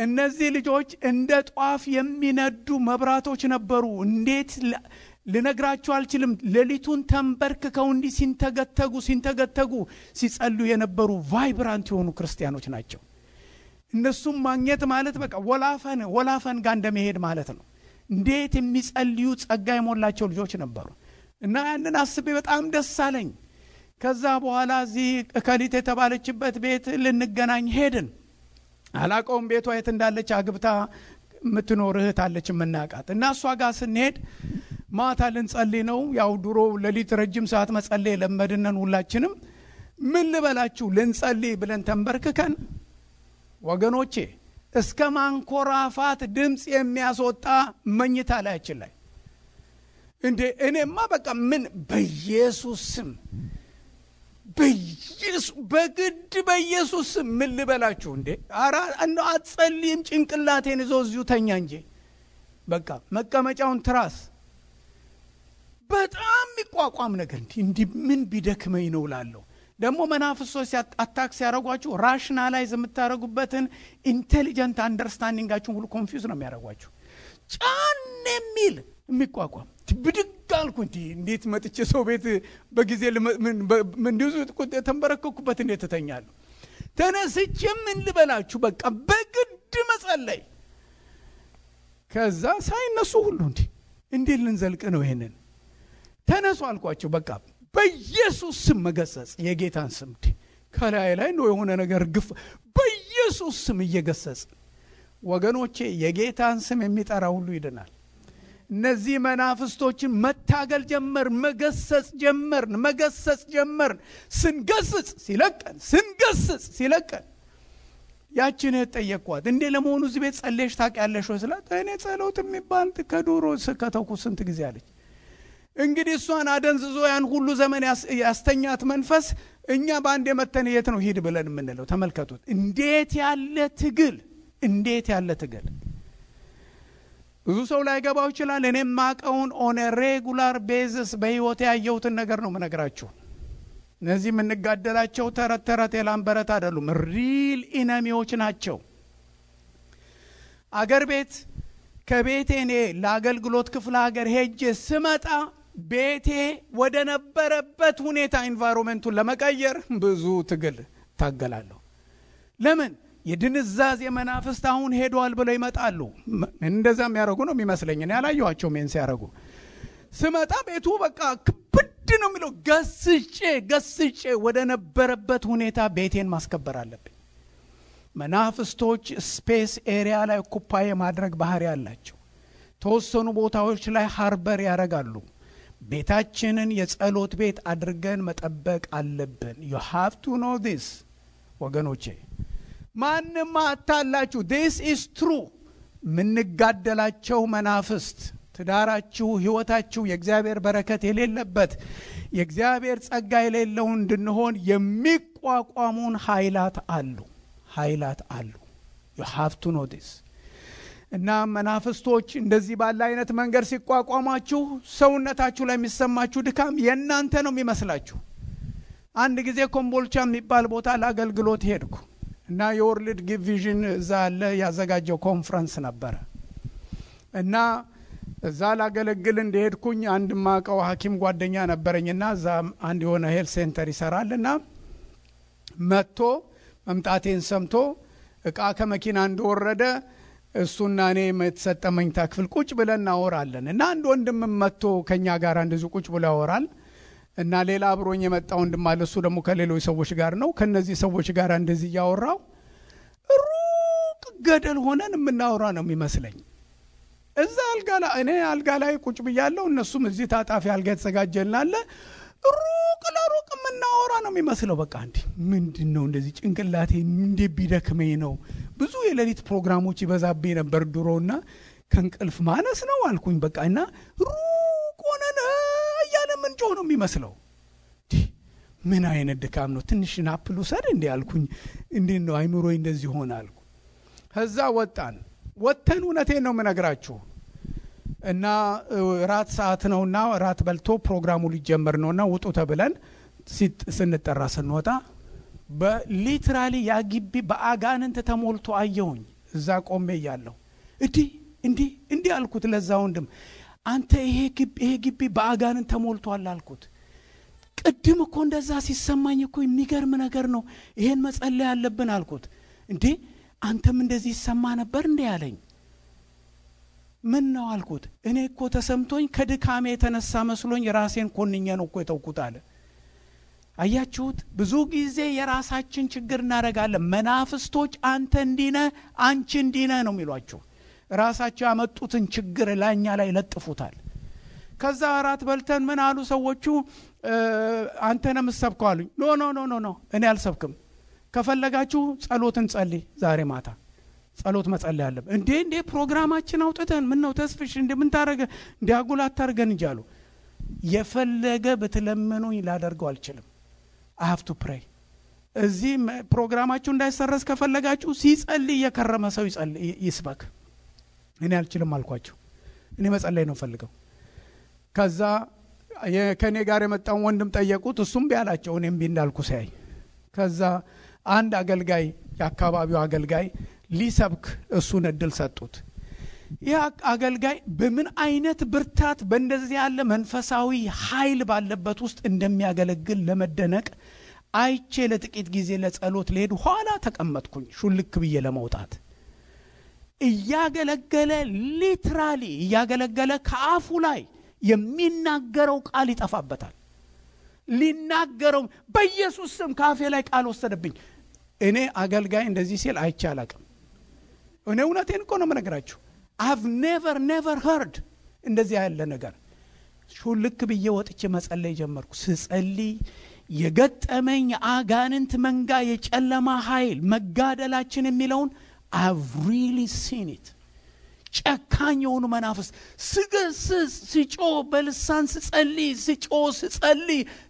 እነዚህ ልጆች እንደ ጧፍ የሚነዱ መብራቶች ነበሩ። እንዴት ልነግራችሁ አልችልም። ሌሊቱን ተንበርክከው እንዲህ ሲንተገተጉ ሲጸልዩ የነበሩ ቫይብራንት የሆኑ ክርስቲያኖች ናቸው። እነሱም ማግኘት ማለት በቃ ወላፈን ጋር እንደመሄድ ማለት ነው። እንዴት የሚጸልዩ ጸጋ የሞላቸው ልጆች ነበሩ እና ያንን አስቤ በጣም ደስ አለኝ። ከዛ በኋላ እዚህ ከሊት የተባለችበት ቤት ልንገናኝ ሄድን። አላቀውም ቤቷ የት እንዳለች አግብታ የምትኖር እህት አለች የምናውቃት እና እሷ ጋር ስንሄድ ማታ ልንጸልይ ነው። ያው ድሮ ሌሊት ረጅም ሰዓት መጸለይ ለመድነን ሁላችንም። ምን ልበላችሁ ልንጸልይ ብለን ተንበርክከን ወገኖቼ እስከ ማንኮራፋት ድምጽ የሚያስወጣ መኝታ ላያችን ላይ እንዴ እኔማ በቃ ምን በኢየሱስ ስም በግድ በኢየሱስ ስም ምን ልበላችሁ እንዴ አራ እንደ አትጸልይም ጭንቅላቴን ይዞ እዚሁ ተኛ እንጂ በቃ መቀመጫውን ትራስ በጣም የሚቋቋም ነገር እንዴ ምን ቢደክመኝ ነው ላለው ደግሞ መናፍስቶች አታክስ ያረጋችሁ ራሽናላይዝ የምታረጉበትን ኢንቴሊጀንት አንደርስታንዲንጋችሁን ሁሉ ኮንፊውዝ ነው የሚያረጋችሁ ጫን የሚል የሚቋቋም ብድግ አልኩ እንዴት መጥቼ ሰው ቤት በጊዜ ምን ዲዙ ተንበረከኩበት እንዴት ተተኛለሁ ተነስቼ ምን ልበላችሁ በቃ በግድ መጸለይ ከዛ ሳይነሱ ሁሉ እንዴት ልንዘልቅ ነው ይሄንን ተነሱ አልኳቸው በቃ በኢየሱስ ስም መገሰጽ የጌታን ስም ከላይ ላይ ነው የሆነ ነገር ግፍ በኢየሱስ ስም እየገሰጽ ወገኖቼ የጌታን ስም የሚጠራ ሁሉ ይድናል እነዚህ መናፍስቶችን መታገል ጀመር መገሰጽ ጀመር ስንገስጽ ሲለቀን ያችን ተጠየቅኳት እንዴ ለመሆኑ እዚህ ቤት ጸልየሽ ታውቂያለሽ ወይ ስላት እኔ ጸሎት የሚባል ከዶሮ ከተውኩ ስንት ጊዜ አለች እንግዲህ እሷን አደንዝዞ ያን ሁሉ ዘመን ያስተኛት መንፈስ እኛ ባንዴ መተን የት ነው ሂድ ብለን የምንለው ተመልከቱት እንዴት ያለ ትግል ብዙ ሰው ላይ ገባው ይችላል እኔም ማቀውን ኦን ሬጉላር ቤዝስ በህይወት ያየሁትን ነገር ነው መነግራችሁ እነዚህ የምንጋደላቸው ተረት የላምበረት አይደሉም ሪል ኢነሚዎች ናቸው አገር ቤት ከቤቴ እኔ ለአገልግሎት ክፍለ ሀገር ሄጄ ስመጣ ቤቴ ወደ ነበረበት ሁኔታ ኢንቫይሮንመንቱን ለመቀየር ብዙ ትግል ታገላለሁ ለምን የድንዛዝ የመናፍስት አሁን ሄዷል ብለው ይመጣሉ እንደዛም ያረጉ ነው የሚመስለኝ እኔ ያላየኋቸው ምን ሲያረጉ ስመጣ ቤቱ በቃ ክብድ ነው የሚለው ገስጬ ወደ ነበረበት ሁኔታ ቤቴን ማስከበር አለብኝ መናፍስቶች ስፔስ ኤሪያ ላይ ኦኩፓይ ማድረግ ባህሪ ያላቸው ተወሰኑ ቦታዎች ላይ ሃርበር ያረጋሉ ቤታችንን የጸሎት ቤት አድርገን መጠበቅ አለብን you have to know this ወገኖቼ ማንንም አታላችሁ this is true ምንጋደላቸው መናፍስት ትዳራችሁ ህይወታችሁ የእግዚአብሔር በረከት የሌለበት የእግዚአብሔር ጸጋ የሌለው እንድንሆን የሚቋቋሙን ኃይላት አሉ you have to know this እና መናፍስቶች እንደዚህ ባለ አይነት መንገድ ሲቋቋማችሁ ሰውነታችሁ ላይ የሚሰማችሁ ድካም የናንተ ነው የሚመስላችሁ አንድ ጊዜ ኮምቦልቻ የሚባል ቦታ ለአገልግሎት ሄድኩ እና የወርልድ ጊቭ ቪዥን እዛ አለ ያዘጋጀው ኮንፈረንስ ነበር እና እዛ ላገለግል እንደሄድኩኝ አንድ ማቀው ሐኪም ጓደኛ ነበረኝና እዛ አንድ የሆነ ሄልት ሴንተር ይሰራልና መጥቶ መምጣቴን ሰምቶ እቃ ከመኪና እንደወረደ እሱና እኔ መተሰጠመኝ ታክፍል ቁጭ ብለን እናወራለን እና አንድ ወንድም መጥቶ ከኛ ጋር እንደዚህ ቁጭ ብሎ ያወራል እና ሌላ አብሮኝ የመጣው ወንድም አለ እሱ ደግሞ ከሌሎች ሰዎች ጋር ነው ከነዚህ ሰዎች ጋር እንደዚህ ያወራው ሩቅ ገደል ሆነን የምናወራ ነው የሚመስለኝ እዛ እኔ አልጋ ላይ ቁጭ ብያለሁ እነሱም እዚህ ታጣፊ አልጋ ተዘጋጀልናል ሩቅ ለሩቅ የምናወራ ነው የሚመስለው በቃ ምንድነው እንደዚህ ጭንቅላቴ እንዴ ቢደክመኝ ነው ብዙ የሌሊት ፕሮግራሞች ይበዛብኝ ነበር ድሮና ከንቅልፍ ማነስ ነው አልኩኝ በቃና ሩቅ ሆነን ያለ ምንጮ ነው የሚመስለው ምን አይነት ድካም ነው ትንሽ ናፕሉ ሰድ እንዴ አልኩኝ እንዴ ነው አይምሮይ እንደዚህ ሆነ አልኩ ከዛ ወጣን እውነቴን ነው መነግራችሁ እና ራት ሰዓት ነውና ራት በልቶ ፕሮግራሙ ሊጀመር ነውና ውጡ ተብለን ስንጠራ ስንወጣ በሊትራሊ ያግቢ በአጋንንት ተሞልቶ አየሁኝ እዛ ቆሜ ያለው እንዴ አልኩት ለዛ ወንድም አንተ ይሄ ግቢ በአጋንንት ተሞልቷል አልኩት ቅድም እኮ እንደዛ ሲሰማኝ እኮ የሚገርም ነገር ነው ይሄን መጸለይ ያለብን አልኩት እንዴ አንተም እንደዚህ ይሰማ ነበር እንዴ ያለኝ ምን ነው አልኩት እኔ እኮ ተሰምቶኝ ከድካሜ የተነሳ መስሎኝ ራሴን ኮንኘ ነው እኮ የተውኩት አለ አያችሁት ብዙ ጊዜ የራሳችን ችግር እናረጋለን መናፍስቶች አንተ እንዲነ አንቺ እንዲነ ነው የሚሏችሁ ራሳቸው ያመጡትን ችግር ላኛ ላይ ለጥፉታል ከዛ አራት በልተን ምን አሉ ሰዎቹ አንተ ነህ የምትሰብከው አሉኝ። ኖ እኔ አልሰብክም። ከፈለጋችሁ ጸሎትን ጸልይ፣ ዛሬ ማታ ጸሎት መጸለይ አለብን። እንዴ ፕሮግራማችን አውጥተን ምን ነው ተስፍሽ እንዴ ምን ታረገ እንዴ አጉላት ታርገን እንጂ አሉ። የፈለገ ብትለምኑኝ ላደርገው አልችልም። I have to pray። እዚህ ፕሮግራማችሁ እንዳይሰረዝ ከፈለጋችሁ ሲጸልይ የከረመ ሰው ይስበክ። እኔ አልችልም አልኳቸው። እኔ መጸለይ ነው ፈልገው። ከዛ ከኔ ጋር የመጣው ወንድም ጠየቁት። እሱም ቢያላቸው እኔም ቢንዳልኩ ሳይ ከዛ አንድ አገልጋይ የአካባቢው አገልጋይ ሊሰብክ እሱን እድል ሰጡት። ያ አገልጋይ በምን አይነት ብርታት በእንደዚህ ያለ መንፈሳዊ ኃይል ባለበት ውስጥ እንደሚያገለግል ለመደነቅ አይቼ ለጥቂት ጊዜ ለጸሎት ልሄድ ኋላ ተቀመጥኩኝ ሹልክ ብዬ ለመውጣት። እያገለገለ ሊትራሊ እያገለገለ ከአፉ ላይ የሚናገረው ቃል ይጠፋበታል። ሊናገረው በኢየሱስ ስም ካፌ ላይ ቃል ወሰደብኝ። እኔ አገልጋይ እንደዚህ ሲል አይቼ አላቅም። እኔ እውነቴን እኮ ነው የምነግራችሁ። I've never heard እንደዚህ ያለ ነገር። ሹልክ ብዬ ወጥቼ መጸለይ ጀመርኩ። ስጸልይ የገጠመኝ አጋንንት መንጋ የጨለማ ኃይል መጋደላችን የሚለውን I've really seen it። ጨካኝ የሆኑ መናፍስ ስገስስ ስጮ በልሳን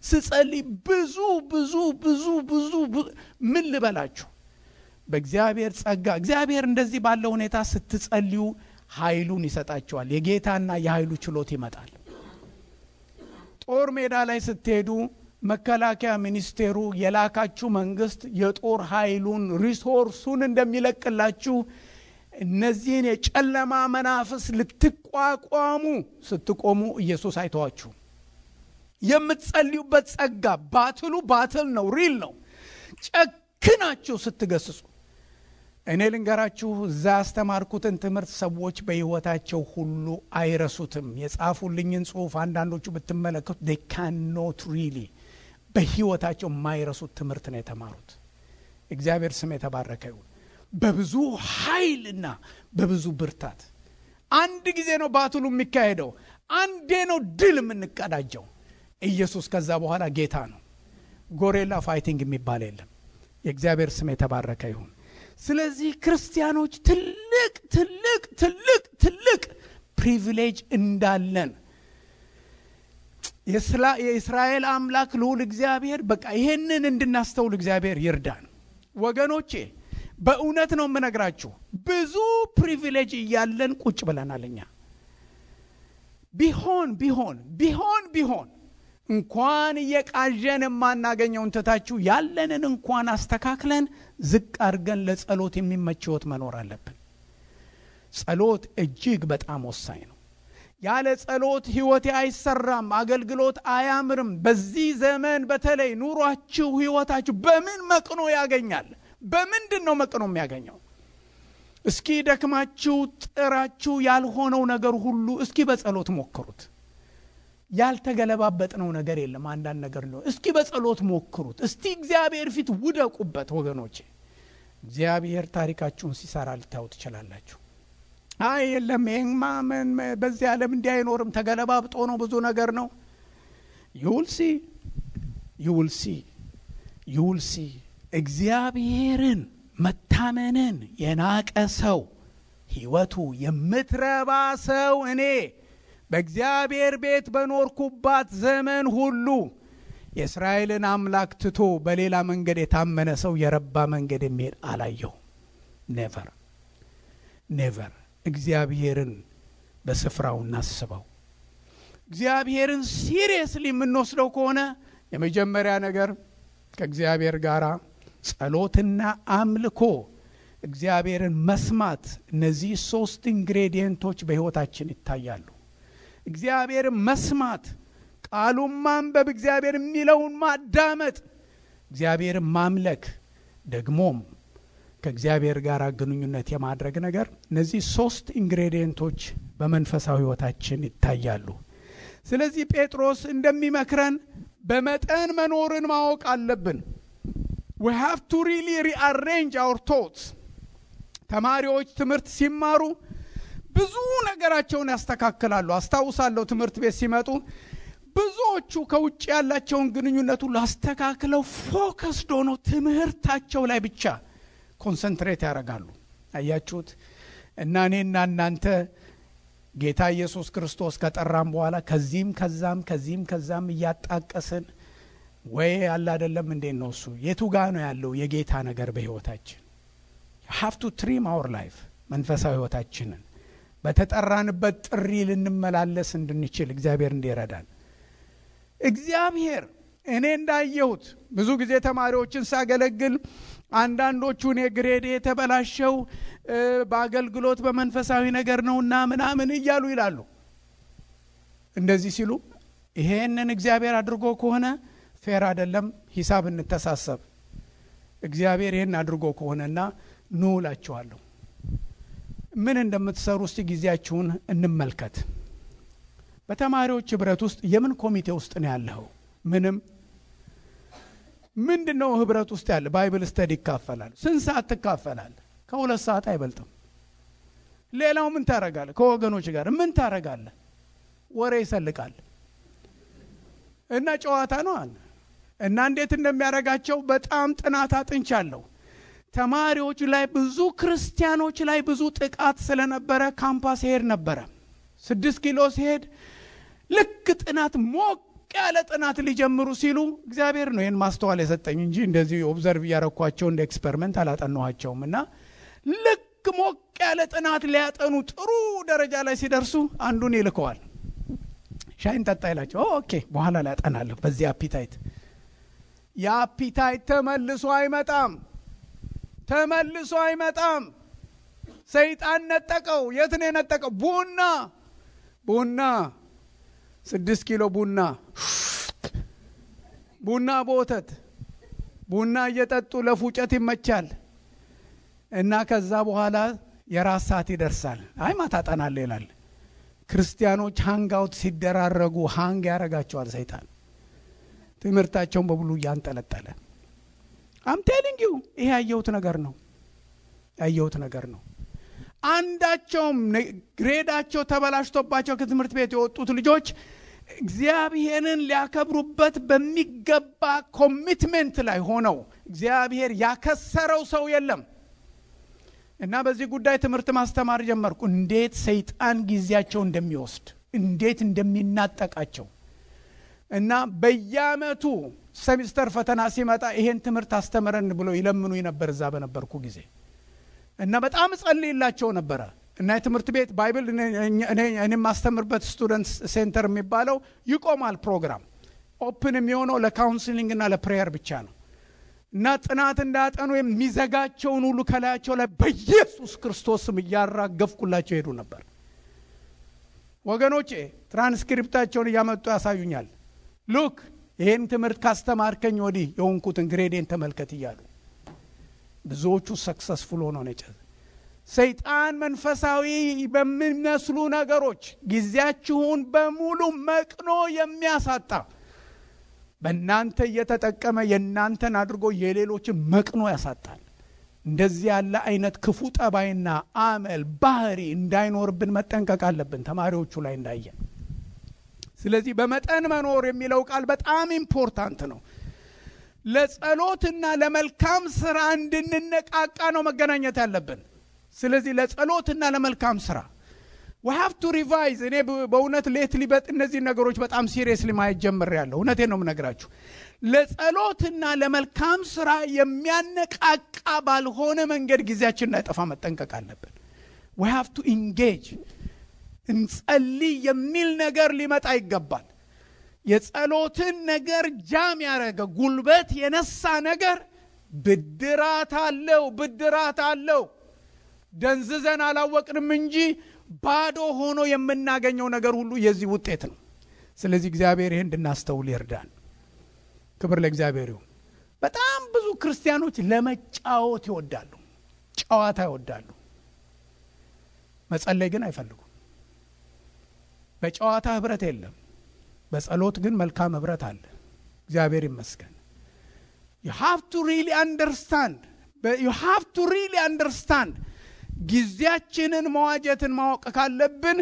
ስጸልይ ብዙ ምን ልበላችሁ። በእግዚአብሔር ጸጋ እግዚአብሔር እንደዚህ ባለው ሁኔታ ስትጸልዩ ኃይሉን ይሰጣቸዋል። የጌታና የኃይሉ ችሎት ይመጣል። ጦር ሜዳ ላይ ስትሄዱ መከላከያ ሚኒስቴሩ የላካችሁ መንግስት የጦር ኃይሉን ሪሶርሱን እንደሚለቅላችሁ እነዚህን የጨለማ መናፍስ ልትቋቋሙ ስትቆሙ ኢየሱስ አይተዋችሁ። የምትጸልዩበት ጸጋ ባትል ነው፣ ሪል ነው። ጨክናችሁ ስትገስጹ እኔ ልንገራችሁ እዛ ያስተማርኩትን ትምህርት ሰዎች በህይወታቸው ሁሉ አይረሱትም። የጻፉልኝን ጽሑፍ አንዳንዶቹ ብትመለከቱ they cannot really በህይወታቸው የማይረሱት ትምህርት ነው የተማሩት። እግዚአብሔር ስም የተባረከ ይሁን። በብዙ ኃይልና በብዙ ብርታት አንድ ጊዜ ነው ባትሉ የሚካሄደው። አንዴ ነው ድል የምንቀዳጀው። ኢየሱስ ከዛ በኋላ ጌታ ነው። ጎሬላ ፋይቲንግ የሚባል የለም። የእግዚአብሔር ስም የተባረከ ይሁን። ስለዚህ ክርስቲያኖች ትልቅ ፕሪቪሌጅ እንዳለን የእስራኤል አምላክ ልዑል እግዚአብሔር በቃ ይሄንን እንድናስተውል እግዚአብሔር ይርዳን። ወገኖቼ በእውነት ነው የምነግራችሁ። ብዙ ፕሪቪሌጅ እያለን ቁጭ ብለናልኛ። ቢሆን እንኳን እየቃዠን የማናገኘውን ትታችሁ ያለንን እንኳን አስተካክለን ዝቅ አድርገን ለጸሎት የሚመች ሕይወት መኖር አለብን። ጸሎት እጅግ በጣም ወሳኝ ነው። ያለ ጸሎት ሕይወቴ አይሰራም፣ አገልግሎት አያምርም። በዚህ ዘመን በተለይ ኑሯችሁ ሕይወታችሁ በምን መቅኖ ያገኛል? በምንድን ነው መቅኖ የሚያገኘው? እስኪ ደክማችሁ ጥራችሁ ያልሆነው ነገር ሁሉ እስኪ በጸሎት ሞክሩት። ያልተገለባበጥነው ነገር የለም። አንዳንድ ነገር ነው። እስኪ በጸሎት ሞክሩት። እስቲ እግዚአብሔር ፊት ውደቁበት ወገኖቼ። እግዚአብሔር ታሪካችሁን ሲሰራ ልታዩ ትችላላችሁ። አይ የለም ይሄማ ምን በዚህ ዓለም እንዲህ አይኖርም፣ ተገለባብጦ ነው፣ ብዙ ነገር ነው። you will see እግዚአብሔርን መታመንን የናቀ ሰው ሕይወቱ የምትረባ ሰው እኔ በእግዚአብሔር ቤት በኖርኩባት ዘመን ሁሉ የእስራኤልን አምላክ ትቶ በሌላ መንገድ የታመነ ሰው የረባ መንገድ የሚሄድ አላየሁ። ኔቨር እግዚአብሔርን በስፍራው እናስበው። እግዚአብሔርን ሲሪየስሊ የምንወስደው ከሆነ የመጀመሪያ ነገር ከእግዚአብሔር ጋር ጸሎትና አምልኮ፣ እግዚአብሔርን መስማት፣ እነዚህ 3 ኢንግሬዲየንቶች በሕይወታችን ይታያሉ። እግዚአብሔርን መስማት፣ ቃሉን ማንበብ፣ እግዚአብሔር የሚለውን ማዳመጥ፣ እግዚአብሔርን ማምለክ፣ ደግሞም ከእግዚአብሔር ጋር ግንኙነት የማድረግ ነገር፣ እነዚህ 3 ኢንግሬዲየንቶች በመንፈሳዊ ሕይወታችን ይታያሉ። ስለዚህ ጴጥሮስ እንደሚመክረን በመጠን መኖርን ማወቅ አለብን። we have to really rearrange our thoughts። ተማሪዎች ትምህርት ሲማሩ ብዙ ነገራቸውን ያስተካክላሉ። አስታውሳለሁ ትምህርት ቤት ሲመጡ ብዙዎቹ ከውጭ ያላቸውን ግንኙነት ሁሉ አስተካክለው ፎከስድ ሆነው ትምህርታቸው ላይ ብቻ ኮንሰንትሬት ያደርጋሉ። አያችሁት? እና እኔና እናንተ ጌታ ኢየሱስ ክርስቶስ ከጠራን በኋላ ከዚህም ከዛም እያጣቀስን ወይ ያለ አይደለም እንዴ ነው እሱ የቱ ጋር ነው ያለው የጌታ ነገር በህይወታችን? you have to trim our life መንፈሳዊ ህይወታችንን በተጠራንበት ጥሪ ልንመላለስ እንድንችል እግዚአብሔር እንዲረዳን። እግዚአብሔር እኔ እንዳየሁት ብዙ ጊዜ ተማሪዎችን ሳገለግል አንዳንዶቹ እኔ ግሬድ የተበላሸው በአገልግሎት በመንፈሳዊ ነገር ነውና ምናምን እያሉ ይላሉ። እንደዚህ ሲሉ ይሄንን እግዚአብሔር አድርጎ ከሆነ ፌር አይደለም፣ ሂሳብ እንተሳሰብ። እግዚአብሔር ይሄን አድርጎ ከሆነና ኑ እላችኋለሁ። ምን እንደምትሰሩ እስቲ ጊዜያችሁን እንመልከት። በተማሪዎች ህብረት ውስጥ የምን ኮሚቴ ውስጥ ነው ያለው? ምንድነው ህብረት ውስጥ ያለ? ባይብል ስተዲ ይካፈላል። ስንት ሰዓት ትካፈላል? ከ2 ሰዓት አይበልጥም። ሌላው ምን ታረጋለህ? ከወገኖች ጋር ምን ታረጋለህ? ወሬ ይሰልቃል እና ጨዋታ ነው አለ እና እንዴት እንደሚያረጋቸው በጣም ጥናት አጥንቻለሁ። ተማሪዎች ላይ ብዙ ክርስቲያኖች ላይ ብዙ ጥቃት ስለነበረ ካምፓስ ሄድ ነበረ። 6 ኪሎ ሲሄድ ልክ ጥናት ሞቅ ያለ ጥናት ሊጀምሩ ሲሉ እግዚአብሔር ነው ይሄን ማስተዋል የሰጠኝ እንጂ እንደዚህ ኦብዘርቭ ያረኳቸው እንደ ኤክስፐሪመንት አላጠናኋቸውም። እና ልክ ሞቅ ያለ ጥናት ሊያጠኑ ጥሩ ደረጃ ላይ ሲደርሱ አንዱን ይልከዋል። ሻይን ጠጣ ይላቸው። ኦኬ በኋላ ላይ አጠናለሁ በዚህ አፒታይት። ያ አፒታይት ተመልሶ አይመጣም። ሰይጣን ነጠቀው። የት ነው የነጠቀው? ቡና 6 ኪሎ ቡና በወተት ቡና እየጠጡ ለፉጨት ይመቻል። እና ከዛ በኋላ የራስ ሰዓት ይደርሳል። አይ ማታ አጠናለሁ ይላል። ክርስቲያኖች ሃንግ አውት ሲደራረጉ ሃንግ ያረጋቸዋል ሰይጣን። ትምህርታቸውን በብሉ ያንጠለጠለ። I'm telling you ይሄ ያየሁት ነገር ነው። አንዳቸውም ግሬዳቸው ተበላሽቶባቸው ከትምህርት ቤት የወጡት ልጆች እግዚአብሔርን ሊያከብሩበት በሚገባ ኮሚትመንት ላይ ሆነው እግዚአብሔር ያከሰረው ሰው የለም። እና በዚህ ጉዳይ ትምህርት ማስተማር ጀመርኩ። እንዴት ሰይጣን ጊዜያቸው እንደሚወስድ እንዴት እንደሚናጠቃቸው እና በየአመቱ ሴሚስተር ፈተና ሲመጣ ይሄን ትምህርት አስተምረን ብሎ ይለምኑ ነበር እዛ በነበርኩ ጊዜ። እና በጣም ጸልይላቸው ነበር። እና የትምህርት ቤት ባይብል እኔ ማስተምርበት ስቱደንትስ ሴንተር የሚባለው ይቆማል። ፕሮግራም ኦፕን የሚሆነው ለካውንስሊንግ እና ለፕሬየር ብቻ ነው። እና ጥናት እንዳጠኑ የሚዘጋቸውን ሁሉ ከላያቸው ላይ በኢየሱስ ክርስቶስ ስም ያራገፍኩላቸው ሄዱ ነበር። ወገኖቼ ትራንስክሪፕታቸውን ያመጡ ያሳዩኛል። ሉክ ይሄን ትምህርት ካስተማርከኝ ወዲህ የሆንኩትን ግሬዴን ተመልከት እያሉ ብዙዎቹ ሰክሰስፉል ሆነው ነው። ሰይጣን መንፈሳዊ በሚመስሉ ነገሮች ጊዜያችሁን በሙሉ መቅኖ የሚያሳጣ በእናንተ እየተጠቀመ የእናንተን አድርጎ የሌሎችን መቅኖ ያሳጣል። እንደዚህ ያለ አይነት ክፉ ጠባይና አመል ባህሪ እንዳይኖርብን መጠንቀቅ አለብን ተማሪዎቹ ላይ እንዳየን። ስለዚህ በመጠን መኖር የሚለው ቃል በጣም ኢምፖርታንት ነው። ለጸሎትና ለመልካም ስራ እንድንነቃቃ ነው መገናኘት ያለብን። ስለዚህ ለጸሎትና ለመልካም ስራ we have to revise። እኔ በእውነት ሌትሊ እነዚህ ነገሮች በጣም ሲሪየስሊ ማየት ጀምሬያለሁ። እውነቴን ነው የምነግራችሁ። ለጸሎትና ለመልካም ስራ የሚያነቃቃ ባልሆነ መንገድ ጊዜያችንን እንዳይጠፋ መጠንቀቅ አለብን። we have to engage። እንጸልይ የሚል ነገር ሊመጣ ይገባል። የጸሎትን ነገር ጃም ያረገ ጉልበት የነሳ ነገር ብድራት አለው። ደንዝዘን አላወቅንም እንጂ ባዶ ሆኖ የምናገኘው ነገር ሁሉ የዚህ ውጤት ነው። ስለዚህ እግዚአብሔር ይሄን እንድናስተውል ይርዳን። ክብር ለእግዚአብሔር ይሁን። በጣም ብዙ ክርስቲያኖች ለመጫወት ይወዳሉ፣ ጨዋታ ይወዳሉ። መጸለይ ግን አይፈልጉም። በጨዋታ ህብረት የለም፣ በጸሎት ግን መልካም ህብረት አለ። እግዚአብሔር ይመስገን። you have to really understand ጊዜያችንን መዋጀትን ማወቅ ካለብን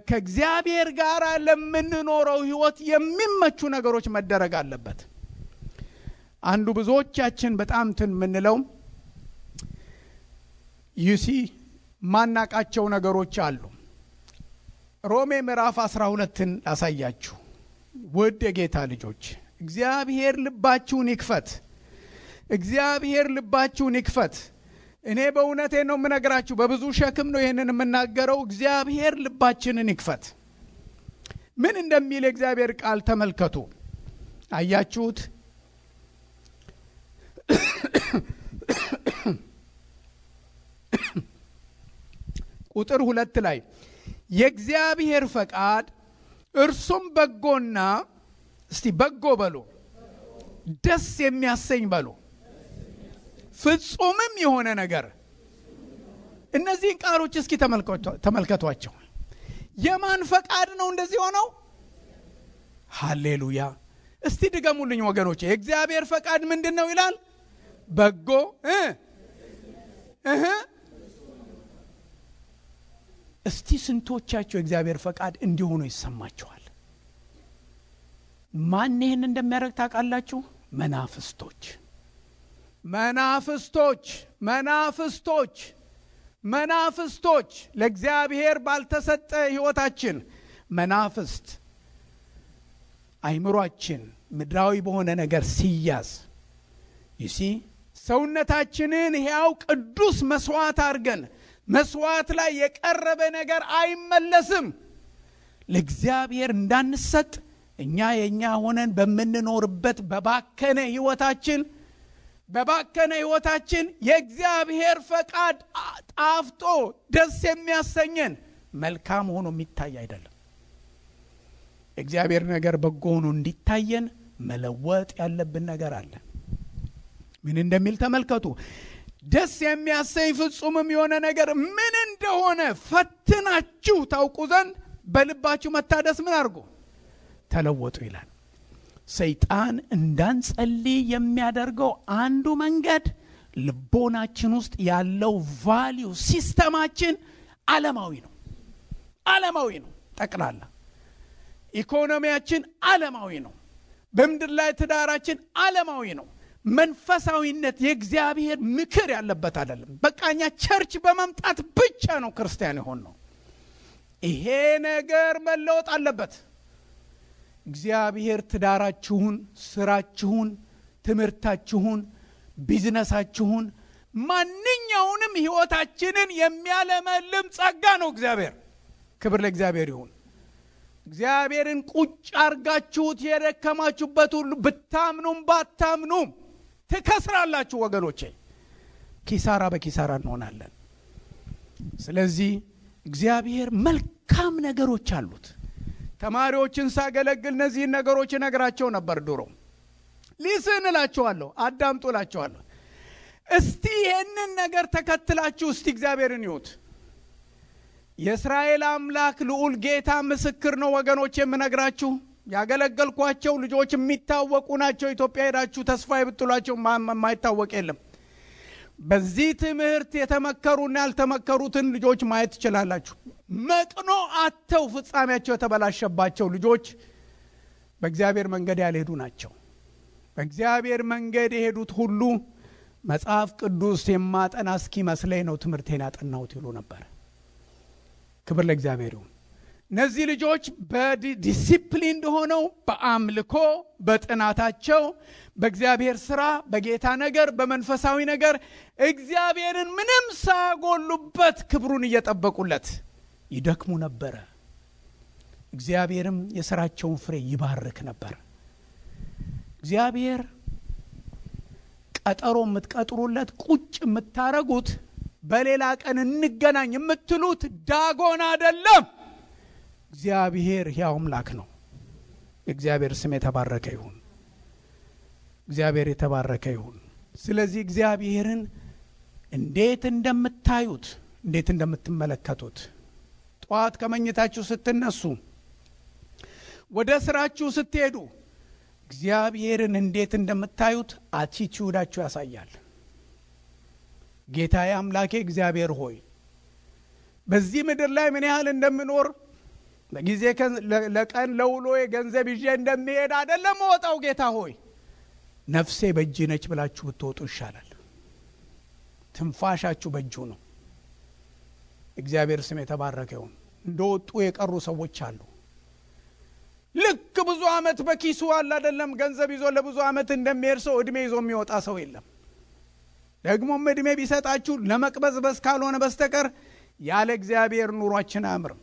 ከእግዚአብሔር ጋር ለምንኖረው ህይወት የሚመቹ ነገሮች መደረግ አለበት። አንዱ ብዙዎቻችን በጣም ምንለው ዩሲ ማናቃቸው ነገሮች አሉ። ሮሜ ምዕራፍ 12ን ላሳያችሁ። ውድ የጌታ ልጆች እግዚአብሔር ልባችሁን ይክፈት። እግዚአብሔር ልባችሁን ይክፈት። እኔ በእውነቴ ነው የምነግራችሁ፣ በብዙ ሸክም ነው ይሄንን የምናገረው። እግዚአብሔር ልባችንን ይክፈት። ምን እንደሚል የእግዚአብሔር ቃል ተመልከቱ። አያችሁት? ቁጥር 2 ላይ የእግዚአብሔር ፈቃድ እርሱም በጎና፣ እስቲ በጎ በሉ፣ ደስ የሚያሰኝ በሉ፣ ፍጹምም የሆነ ነገር። እነዚህን ቃሎች እስኪ ተመልከቷቸው። የማን ፈቃድ ነው እንደዚህ ሆነው? ሃሌሉያ! እስቲ ድገሙልኝ ወገኖቼ። የእግዚአብሔር ፈቃድ ምንድነው ይላል? በጎ እስቲ ስንቶቻቸው የእግዚአብሔር ፈቃድ እንዲሆኑ ይሰማቸዋል? ማን ይሄን እንደሚያደርግ ታውቃላችሁ? መናፍስቶች መናፍስቶች መናፍስቶች መናፍስቶች ለእግዚአብሔር ባልተሰጠ ህይወታችን መናፍስት አይምሮአችን ምድራዊ በሆነ ነገር ሲያዝ ይሲ ሰውነታችንን ሕያው ቅዱስ መስዋዕት አድርገን መስዋዕት ላይ የቀረበ ነገር አይመለስም። ለእግዚአብሔር እንዳንሰጥ እኛ የኛ ሆነን በመንኖርበት በባከነ ህይወታችን የእግዚአብሔር ፈቃድ ጣፍጦ ደስ የሚያሰኘን መልካም ሆኖ የሚታይ አይደለም። እግዚአብሔር ነገር በጎ ሆኖ እንዲታየን መለወጥ ያለብን ነገር አለ። ምን እንደሚል ተመልከቱ። ደስ የሚያሰኝ ፍጹምም የሆነ ነገር ምን እንደሆነ ፈትናችሁ ታውቁ ዘንድ በልባችሁ መታደስ ምን አድርጉ? ተለወጡ ይላል። ሰይጣን እንዳንጸልይ የሚያደርገው አንዱ መንገድ ልቦናችን ውስጥ ያለው ቫልዩ ሲስተማችን ዓለማዊ ነው። ጠቅላላ ኢኮኖሚያችን ዓለማዊ ነው። በምድር ላይ ትዳራችን ዓለማዊ ነው። መንፈሳዊነት የእግዚአብሔር ምክር ያለበት አይደለም። በቃኛ ቸርች በመምጣት ብቻ ነው ክርስቲያን የሆነው። ይሄ ነገር መለወጥ አለበት። እግዚአብሔር ትዳራችሁን፣ ስራችሁን፣ ትምህርታችሁን፣ ቢዝነሳችሁን፣ ማንኛውንም ህይወታችንን የሚያለመልም ጸጋ ነው እግዚአብሔር። ክብር ለእግዚአብሔር ይሁን። እግዚአብሔርን ቁጭ አርጋችሁት የደከማችሁበት ሁሉ ብታምኑም ባታምኑም ትከስራላችሁ ወገኖቼ። ኪሳራ በኪሳራ እንሆናለን። ስለዚህ እግዚአብሔር መልካም ነገሮች አሉት። ተማሪዎችን ሳገለግል እነዚህን ነገሮች ነግራቸው ነበር ድሮ። ሊስን እላቸዋለሁ፣ አዳምጡ እላቸዋለሁ። እስቲ ይሄንን ነገር ተከትላችሁ እስቲ እግዚአብሔርን ይዩት። የእስራኤል አምላክ ልዑል ጌታ ምስክር ነው ወገኖች። የምነግራችሁ ያገለገልኳቸው ልጆች የሚታወቁ ናቸው። ኢትዮጵያ ሄዳችሁ ተስፋ ይብጥሏቸው የማይታወቅ የለም። በዚህ ትምህርት የተመከሩና ያልተመከሩትን ልጆች ማየት ትችላላችሁ። መቅኖ አተው ፍጻሜያቸው የተበላሸባቸው ልጆች በእግዚአብሔር መንገድ ያልሄዱ ናቸው። በእግዚአብሔር መንገድ የሄዱት ሁሉ መጽሐፍ ቅዱስ የማጠና እስኪመስለኝ ነው ትምህርቴን ያጠናሁት ይሉ ነበር። ክብር ለእግዚአብሔር ይሁን። እነዚህ ልጆች በዲሲፕሊን ሆነው በአምልኮ በጥናታቸው በእግዚአብሔር ሥራ በጌታ ነገር በመንፈሳዊ ነገር እግዚአብሔርን ምንም ሳያጎሉበት ክብሩን እየጠበቁለት ይደክሙ ነበር። እግዚአብሔርም የሥራቸውን ፍሬ ይባርክ ነበር። እግዚአብሔር ቀጠሮ የምትቀጥሩለት ቁጭ የምታረጉት በሌላ ቀን እንገናኝ የምትሉት ዳጎን አይደለም። እግዚአብሔር ሕያው አምላክ ነው። እግዚአብሔር ስም የተባረከ ይሁን። እግዚአብሔር የተባረከ ይሁን። ስለዚህ እግዚአብሔርን እንዴት እንደምታዩት እንዴት እንደምትመለከቱት ጧት ከመኝታችሁ ስትነሱ ወደ ስራችሁ ስትሄዱ እግዚአብሔርን እንዴት እንደምታዩት አቲቲዩዳችሁ ያሳያል። ጌታዬ አምላኬ እግዚአብሔር ሆይ በዚህ ምድር ላይ ምን ያህል እንደምኖር በጊዜ ለቀን ለውሎ የገንዘብ ይዤ እንደሚሄድ አይደለም ወጣው። ጌታ ሆይ ነፍሴ በእጅ ነች ብላችሁ ብትወጡ ይሻላል። ትንፋሻችሁ በእጁ ነው። እግዚአብሔር ስም የተባረከ ይሁን። እንደወጡ የቀሩ ሰዎች አሉ። ልክ ብዙ አመት በኪሱ አለ አይደለም ገንዘብ ይዞ ለብዙ አመት እንደሚሄድ ሰው እድሜ ይዞ የሚወጣ ሰው የለም። ደግሞም እድሜ ቢሰጣችሁ ለመቅበዝበዝ ካልሆነ በስተቀር ያለ እግዚአብሔር ኑሯችን አያምርም።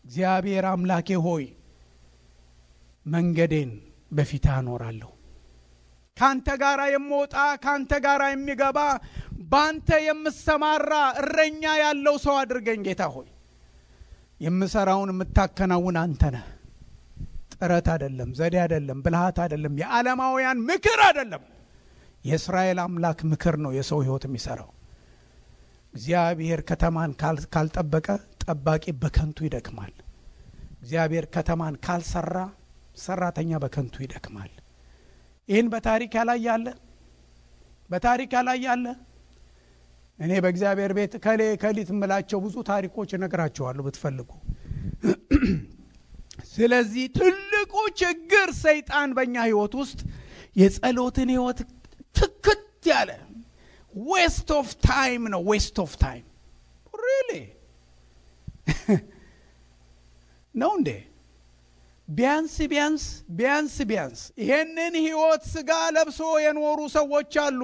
እግዚአብሔር አምላኬ ሆይ መንገዴን በፊት አኖራለሁ። ካንተ ጋራ የምወጣ ካንተ ጋራ የሚገባ ባንተ የምሰማራ እረኛ ያለው ሰው አድርገኝ ጌታ ሆይ። የምሰራውን የምታከናውን አንተ ነህ። ጥረት አይደለም፣ ዘዴ አይደለም፣ ብልሃት አይደለም፣ የዓለማውያን ምክር አይደለም። የእስራኤል አምላክ ምክር ነው የሰው ህይወት የሚሰራው። እግዚአብሔር ከተማን ካልጠበቀ ጠባቂ በከንቱ ይደክማል። እግዚአብሔር ከተማን ካልሰራ ሰራተኛ በከንቱ ይደክማል። ይህን በታሪክ ላይ ያለ እኔ በእግዚአብሔር ቤት ከሊት ምላቸው ብዙ ታሪኮች እነግራቸዋለሁ ብትፈልጉ። ስለዚህ ትልቁ ችግር ሰይጣን በእኛ ህይወት ውስጥ የጸሎትን ህይወት ትክት ያለ waste of time ነው። waste of time really ነው እንዴ? ቢያንስ ይሄንን ህይወት ስጋ ለብሶ የኖሩ ሰዎች አሉ።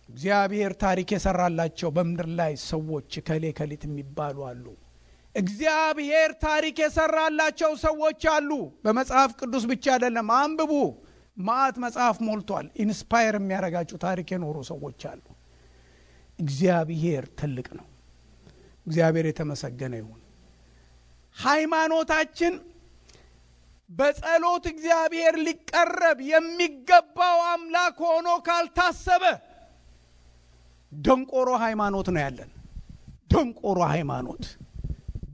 እግዚአብሔር ታሪክ የሰራላቸው በምድር ላይ ሰዎች ከሌት የሚባሉ አሉ። እግዚአብሔር ታሪክ የሰራላቸው ሰዎች አሉ። በመጽሐፍ ቅዱስ ብቻ አይደለም፣ አንብቡ። ማአት መጽሐፍ ሞልቷል። ኢንስፓየር የሚያረጋችሁ ታሪክ የኖሩ ሰዎች አሉ። እግዚአብሔር ትልቅ ነው። እግዚአብሔር የተመሰገነ ይሁን። ሃይማኖታችን በጸሎት እግዚአብሔር ሊቀረብ የሚገባው አምላክ ሆኖ ካልታሰበ ደንቆሮ ሃይማኖት ነው ያለን። ደንቆሮ ሃይማኖት፣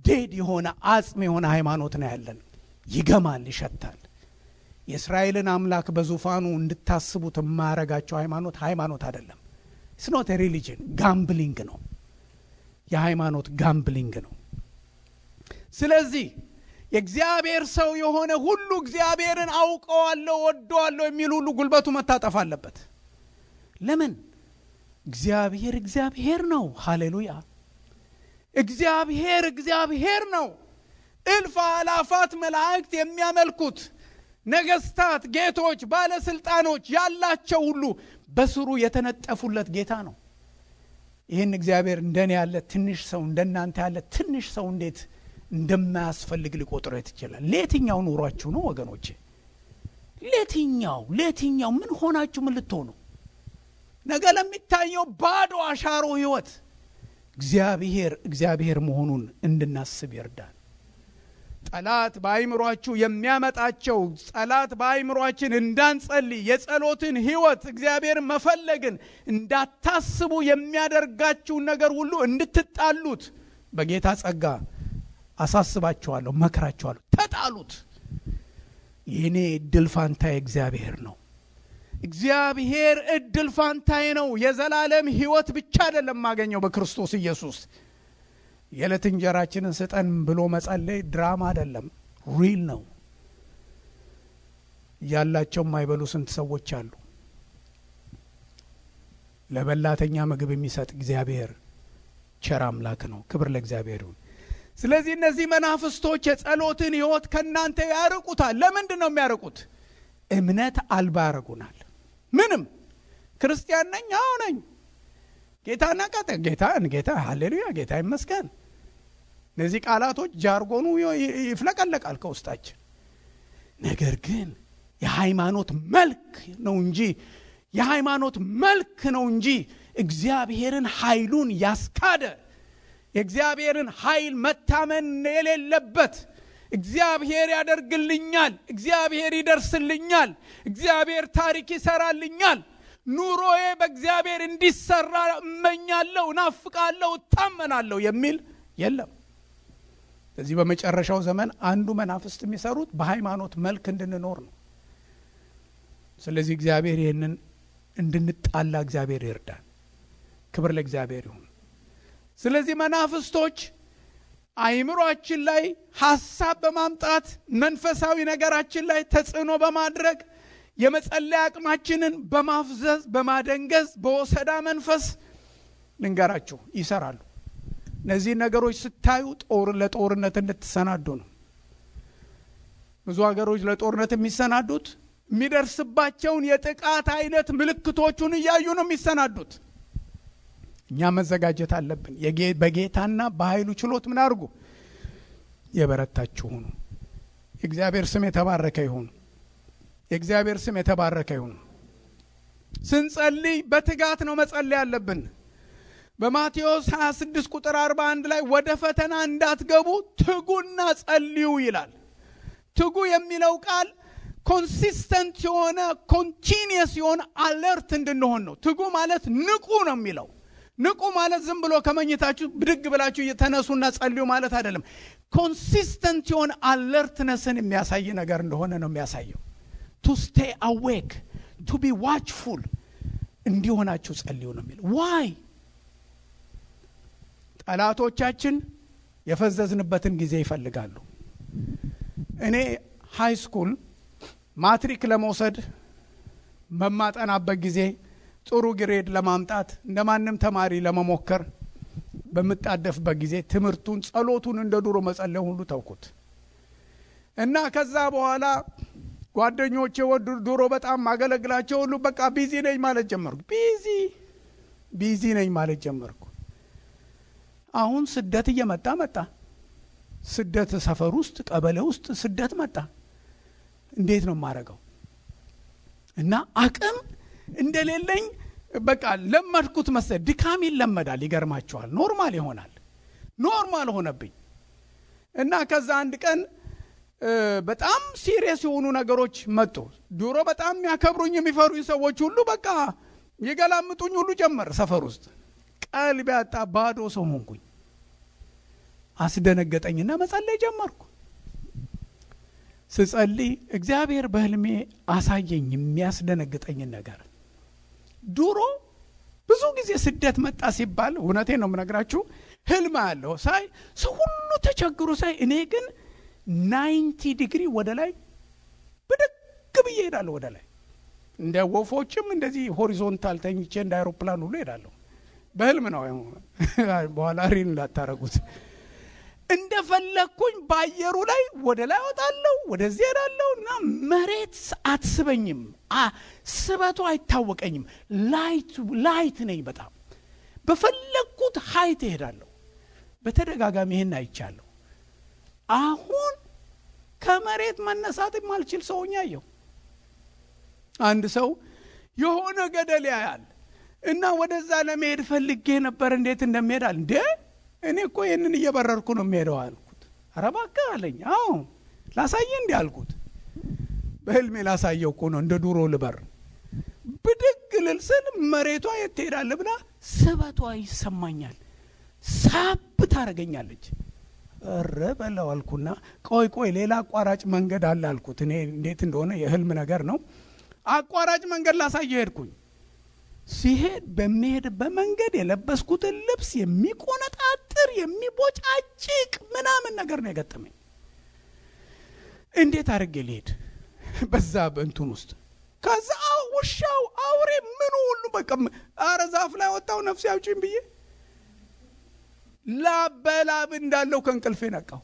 ዴድ የሆነ አጽም የሆነ ሃይማኖት ነው ያለን። ይገማል፣ ይሸታል። የእስራኤልን አምላክ በዙፋኑ እንድታስቡት የማያረጋቸው ሃይማኖት አይደለም። it's not a religion፣ ጋምብሊንግ ነው። የሃይማኖት ጋምብሊንግ ነው። ስለዚህ የእግዚአብሔር ሰው የሆነ ሁሉ እግዚአብሔርን አውቀዋለሁ ወደዋለሁ የሚል ሁሉ ጉልበቱ መታጠፍ አለበት። ለምን? እግዚአብሔር ነው። ሃሌሉያ! እግዚአብሔር ነው። እልፍ አላፋት መላእክት የሚያመልኩት ነገስታት፣ ጌቶች፣ ባለስልጣኖች ያላቸው ሁሉ በስሩ የተነጠፉለት ጌታ ነው። ይህን እግዚአብሔር እንደኔ ያለ ትንሽ ሰው እንደናንተ ያለ ትንሽ ሰው እንዴት እንደማያስፈልግ ሊቆጥረው ይችላል? ለየትኛው ኑሯችሁ ነው ወገኖቼ? ለየትኛው ምን ሆናችሁ ምን ልትሆኑ? ነገ ለሚታየው ባዶ አሻሮ ህይወት እግዚአብሔር መሆኑን እንድናስብ ይርዳል። ጠላት በአይምሮአችሁ የሚያመጣቸው ጠላት በአይምሮአችን እንዳንጸልይ የጸሎትን ህይወት እግዚአብሔር መፈለግን እንዳታስቡ የሚያደርጋችሁ ነገር ሁሉ እንድትጣሉት በጌታ ጸጋ አሳስባችኋለሁ፣ መከራችኋለሁ። ተጣሉት። የኔ እድል ፋንታዬ እግዚአብሔር ነው። እግዚአብሔር እድል ፋንታዬ ነው። የዘላለም ህይወት ብቻ አይደለም ማገኘው በክርስቶስ ኢየሱስ። የዕለት እንጀራችንን ስጠን ብሎ መጸለይ ድራማ አይደለም፣ ሪል ነው። ያላቸው የማይበሉ ስንት ሰዎች አሉ። ለበላተኛ ምግብ የሚሰጥ እግዚአብሔር ቸር አምላክ ነው። ክብር ለእግዚአብሔር ይሁን። ስለዚህ እነዚህ መናፍስቶች የጸሎትን ህይወት ከናንተ ያርቁታል። ለምንድን ነው የሚያርቁት? እምነት አልባ ያረጉናል። ምንም ክርስቲያን ነኝ፣ አዎ ነኝ፣ ጌታና ጌታ ሃሌሉያ፣ ጌታ ይመስገን። እነዚህ ቃላቶች ጃርጎኑ ይፍለቀለቃል ከውስጣችን። ነገር ግን የሃይማኖት መልክ ነው እንጂ እግዚአብሔርን ኃይሉን ያስካደ የእግዚአብሔርን ኃይል መታመን የሌለበት እግዚአብሔር ያደርግልኛል፣ እግዚአብሔር ይደርስልኛል፣ እግዚአብሔር ታሪክ ይሰራልኛል፣ ኑሮዬ በእግዚአብሔር እንዲሰራ እመኛለሁ፣ ናፍቃለሁ፣ እታመናለሁ የሚል የለም። ስለዚህ በመጨረሻው ዘመን አንዱ መናፍስት የሚሰሩት በሃይማኖት መልክ እንድንኖር ነው። ስለዚህ እግዚአብሔር ይህንን እንድንጣላ እግዚአብሔር ይርዳል። ክብር ለእግዚአብሔር ይሁን። ስለዚህ መናፍስቶች አይምሮአችን ላይ ሐሳብ በማምጣት መንፈሳዊ ነገራችን ላይ ተጽዕኖ በማድረግ የመጸለይ አቅማችንን በማፍዘዝ በማደንገዝ በወሰዳ መንፈስ ልንገራችሁ ይሰራሉ። እነዚህ ነገሮች ስታዩ ለጦርነት እንድትሰናዱ ነው። ብዙ ሀገሮች ለጦርነት የሚሰናዱት የሚደርስባቸውን የጥቃት አይነት ምልክቶቹን እያዩ ነው የሚሰናዱት። እኛ መዘጋጀት አለብን። በጌታና በኃይሉ ችሎት ምን አድርጉ? የበረታችሁ ሁኑ። የእግዚአብሔር ስም የተባረከ ይሁን። የእግዚአብሔር ስም የተባረከ ይሁን። ስንጸልይ በትጋት ነው መጸለይ ያለብን። በማቴዎስ 26 ቁጥር 41 ላይ ወደ ፈተና እንዳትገቡ ትጉና ጸልዩ ይላል። ትጉ የሚለው ቃል ኮንሲስተንት የሆነ ኮንቲኒየስ የሆነ አለርት እንድንሆን ነው። ትጉ ማለት ንቁ ነው የሚለው። ንቁ ማለት ዝም ብሎ ከመኝታችሁ ብድግ ብላችሁ እየተነሱና ጸልዩ ማለት አይደለም። ኮንሲስተንት የሆነ አለርትነስን የሚያሳይ ነገር እንደሆነ ነው የሚያሳየው። to stay awake, to be watchful እንዲሆናችሁ ጸልዩ ነው የሚለው። why? ጠላቶቻችን የፈዘዝንበትን ጊዜ ይፈልጋሉ። እኔ ሃይ ስኩል ማትሪክ ለመውሰድ በማጠናበት ጊዜ ጥሩ ግሬድ ለማምጣት እንደማንም ተማሪ ለመሞከር በመጣደፍበት ጊዜ ትምህርቱን ጸሎቱን እንደ ድሮ መጸለይ ሁሉ ተውኩት እና ከዛ በኋላ ጓደኞቼ ድሮ በጣም ማገለግላቸው ሁሉ በቃ ቢዚ ነኝ ማለት ጀመርኩ። ቢዚ ነኝ ማለት ጀመርኩ። አሁን ስደት እየመጣ መጣ። ስደት ሰፈር ውስጥ ቀበሌ ውስጥ ስደት መጣ። እንዴት ነው ማረጋው? እና አቅም እንደሌለኝ በቃ ለመድኩት መሰለ። ድካም ይለመዳል፣ ይገርማችኋል። ኖርማል ይሆናል። ኖርማል ሆነብኝ እና ከዛ አንድ ቀን በጣም ሲሪየስ የሆኑ ነገሮች መጡ። ድሮ በጣም ያከብሩኝ የሚፈሩኝ ሰዎች ሁሉ በቃ የገላምጡኝ ሁሉ ጀመር። ሰፈር ውስጥ ቀልብ ያጣ ባዶ ሰው ሆንኩኝ። አስደነገጠኝና መጸለይ ጀመርኩ። ስጸልይ እግዚአብሔር በህልሜ አሳየኝ የሚያስደነግጠኝ ነገር። ድሮ ብዙ ጊዜ ስደት መጣ ሲባል እውነቴን ነው የምነግራችሁ ህልም አለው ሳይ ሰው ሁሉ ተቸግሮ ሳይ እኔ ግን 90 ዲግሪ ወደ ላይ ብድግ ብዬ ሄዳለሁ። ወደ ላይ እንደ ወፎችም እንደዚህ ሆሪዞንታል ተኝቼ እንደ አይሮፕላን ሁሉ ሄዳለሁ። በህልም ነው። በኋላ ሪን ላታረጉት እንደፈለኩኝ ባየሩ ላይ ወደ ላይ ወጣለሁ፣ ወደዚህ ሄዳለሁና መሬት አትስበኝም። ስበቱ አይታወቀኝም። ላይት ነኝ። በጣም በፈለኩት ሀይት ሄዳለሁ። በተደጋጋሚ ይሄን አይቻለሁ። አሁን ከመሬት መነሳት የማልችል ሰውኛ ያየው አንድ ሰው የሆነ ገደል ያያል እና ወደዛ ለመሄድ ፈልጌ ነበር። እንዴት እንደምሄዳል እንዴ እኔ እኮ ይሄንን እየበረርኩ ነው የምሄደው አልኩት። ኧረ እባክህ አለኝ። አዎ ላሳየ እንዴ አልኩት። በህልሜ ላሳየው እኮ ነው እንደ ዱሮ ልበር። ብድግ ልልስል መሬቷ የት ትሄዳለህ ብላ ስበቷ ይሰማኛል። ሳብ ታረገኛለች። እረ በለው አልኩና ቆይ ሌላ አቋራጭ መንገድ አለ አልኩት። እኔ እንዴት እንደሆነ የህልም ነገር ነው። አቋራጭ መንገድ ላሳየ ሄድኩኝ። ሲሄድ በመሄድ በመንገድ የለበስኩትን ልብስ የሚቆነጣጥር የሚቦጫጭቅ ምናምን ነገር ነው የገጠመኝ። እንዴት አድርጌ ልሄድ በዛ በእንቱን ውስጥ? ከዛ ውሻው አውሬ ምን ሁሉ በቃ አረ ዛፍ ላይ ወጣው ነፍስ ያውጪኝ ብዬ ላበላብ እንዳለው ከእንቅልፌ ነቃው።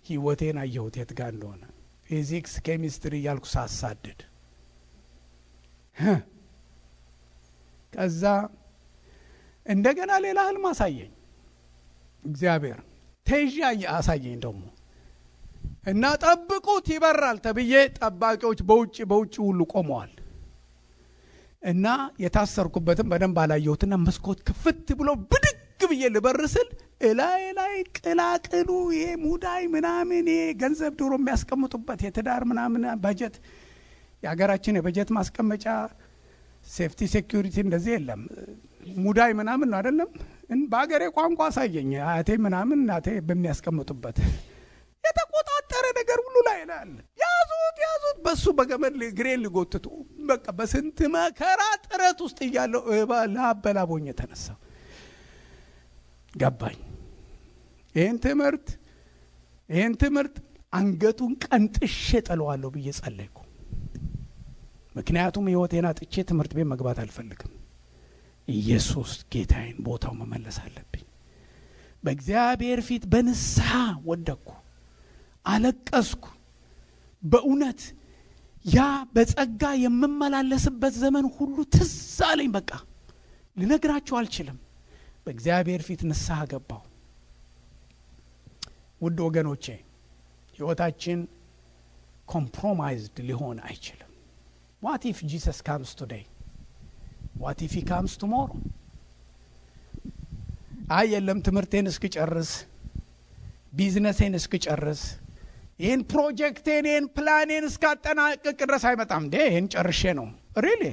ህይወቴን አየሁት የት ጋር እንደሆነ። ፊዚክስ ኬሚስትሪ ያልኩ ሳሳድድ ከዛ እንደገና ሌላ ህልም አሳየኝ እግዚአብሔር። ተይዣ አሳየኝ ደግሞ እና ጠብቁት ይበራል ተብዬ ጠባቂዎች በውጭ ሁሉ ቆመዋል። እና የታሰርኩበትም በደንብ አላየሁትና መስኮት ክፍት ብሎ ብድግ ብዬ ልበርስል ላይ ቅላቅሉ ይሄ ሙዳይ ምናምን ይሄ ገንዘብ ድሮ የሚያስቀምጡበት የትዳር ምናምን በጀት የሀገራችን የበጀት ማስቀመጫ ሴፍቲ ሴኩሪቲ እንደዚህ የለም። ሙዳይ ምናምን ነው አይደለም። በአገሬ ቋንቋ አሳየኝ። አያቴ ምናምን እናቴ በሚያስቀምጡበት የተቆጣጠረ ነገር ሁሉ ላይ አለ። ያዙት በሱ በገመድ ግሬን ሊጎትቱ በቃ በስንት መከራ ጥረት ውስጥ እያለው ላበላቦኝ ተነሳ። ገባኝ። ይህን ትምህርት አንገቱን ቀንጥሼ ጥለዋለሁ ብዬ ጸለይኩ። ምክንያቱም ሕይወቴን አጥቼ ትምህርት ቤት መግባት አልፈልግም። ኢየሱስ ጌታዬን ቦታው መመለስ አለብኝ። በእግዚአብሔር ፊት በንስሐ ወደቅኩ፣ አለቀስኩ። በእውነት ያ በጸጋ የምመላለስበት ዘመን ሁሉ ትዝ አለኝ። በቃ ልነግራችሁ አልችልም። በእግዚአብሔር ፊት ንስሐ ገባሁ። ውድ ወገኖቼ ሕይወታችን ኮምፕሮማይዝድ ሊሆን አይችልም። What if Jesus comes today? What if he comes tomorrow? የለም ትምህርቴን እስክጨርስ፣ ቢዝነሴን እስክጨርስ፣ ይህን ፕሮጀክቴን ይህን ፕላኔን እስካጠናቅቅ ድረስ አይመጣም እንዴ? ይህን ጨርሼ ነው ሪሊ።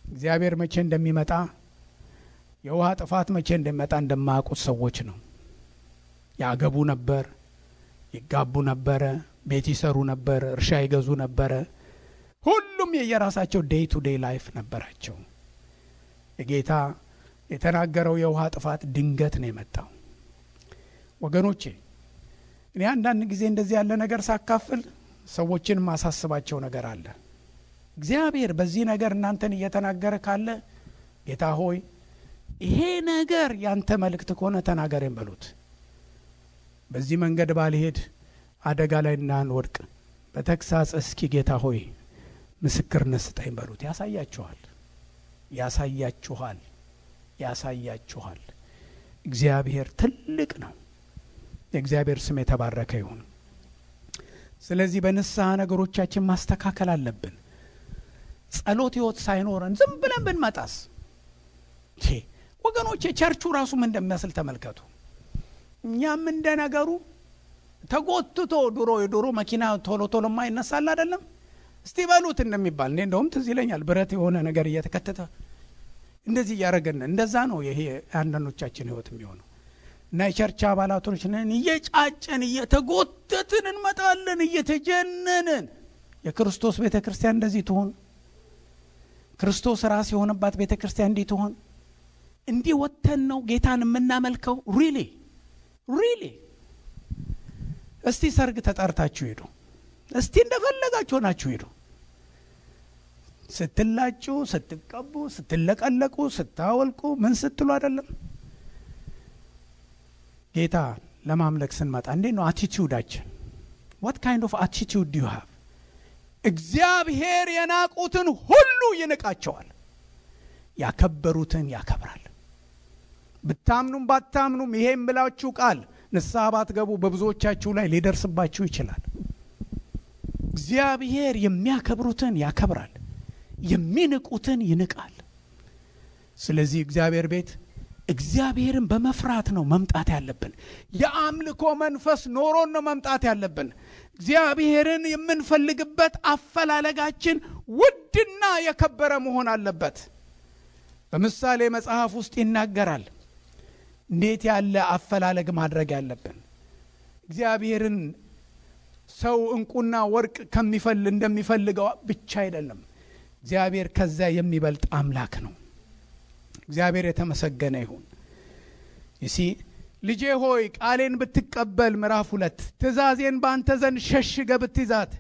እግዚአብሔር መቼ እንደሚመጣ የውሃ ጥፋት መቼ እንደሚመጣ እንደማያውቁት ሰዎች ነው። ያገቡ ነበር፣ ይጋቡ ነበረ፣ ቤት ይሰሩ ነበር፣ እርሻ ይገዙ ነበረ። ሁሉም የየራሳቸው ዴይ ቱ ዴይ ላይፍ ነበራቸው። የጌታ የተናገረው የውሃ ጥፋት ድንገት ነው የመጣው። ወገኖቼ እኔ አንዳንድ ጊዜ እንደዚህ ያለ ነገር ሳካፍል ሰዎችን ማሳስባቸው ነገር አለ። እግዚአብሔር በዚህ ነገር እናንተን እየተናገረ ካለ ጌታ ሆይ ይሄ ነገር ያንተ መልእክት ከሆነ ተናገረኝ በሉት። በዚህ መንገድ ባልሄድ አደጋ ላይ እንዳንወድቅ በተግሳጽ እስኪ ጌታ ሆይ ምስክርነት ስጠኝ በሉት። ያሳያችኋል። እግዚአብሔር ትልቅ ነው። የእግዚአብሔር ስም የተባረከ ይሁን። ስለዚህ በንስሐ ነገሮቻችን ማስተካከል አለብን። ጸሎት ሕይወት ሳይኖረን ዝም ብለን ብንመጣስ ወገኖቼ ቸርቹ ራሱ ምን እንደሚመስል ተመልከቱ። እኛም እንደነገሩ ተጎትቶ የድሮ መኪና ቶሎ ማይነሳል አይደለም? እስቲ በሉት እንደሚባል እኔ እንደውም ትዝ ይለኛል። ብረት የሆነ ነገር እየተከተተ እንደዚህ እያደረገን እንደዛ ነው ይሄ አንዳንዶቻችን ሕይወት የሚሆነው። እና የቸርች አባላቶች ነን፣ እየጫጨን እየተጎተትን እንመጣለን፣ እየተጀነንን። የክርስቶስ ቤተክርስቲያን እንደዚህ ትሆን? ክርስቶስ ራስ የሆነባት ቤተክርስቲያን እንዲህ ትሆን? እንዲህ ወተን ነው ጌታን የምናመልከው? ሪሊ እስቲ ሰርግ ተጠርታችሁ ሄዱ። እስቲ እንደፈለጋችሁ ናችሁ ሄዱ። ስትላጩ፣ ስትቀቡ፣ ስትለቀለቁ፣ ስታወልቁ ምን ስትሉ አይደለም? ጌታ ለማምለክ ስንመጣ እንዴት ነው አቲቲዩዳችን? what kind of attitude do you have? እግዚአብሔር የናቁትን ሁሉ ይንቃቸዋል፣ ያከበሩትን ያከብራል። ብታምኑም ባታምኑም ይሄን ብላችሁ ቃል ንስሐ ባትገቡ በብዙዎቻችሁ ላይ ሊደርስባችሁ ይችላል። እግዚአብሔር የሚያከብሩትን ያከብራል፣ የሚንቁትን ይንቃል። ስለዚህ እግዚአብሔር ቤት እግዚአብሔርን በመፍራት ነው መምጣት ያለብን። የአምልኮ መንፈስ ኖሮን ነው መምጣት ያለብን። እግዚአብሔርን የምንፈልግበት አፈላለጋችን ውድና የከበረ መሆን አለበት። በምሳሌ መጽሐፍ ውስጥ ይናገራል እንዴት ያለ አፈላለግ ማድረግ ያለብን። እግዚአብሔርን ሰው እንቁና ወርቅ እንደሚፈልገው ብቻ አይደለም። እግዚአብሔር ከዛ የሚበልጥ አምላክ ነው። እግዚአብሔር የተመሰገነ ይሁን። እሺ ልጄ ሆይ ቃሌን ብትቀበል፣ ምዕራፍ 2 ትእዛዜን ባንተ ዘንድ ሸሽገ ብትይዛት፣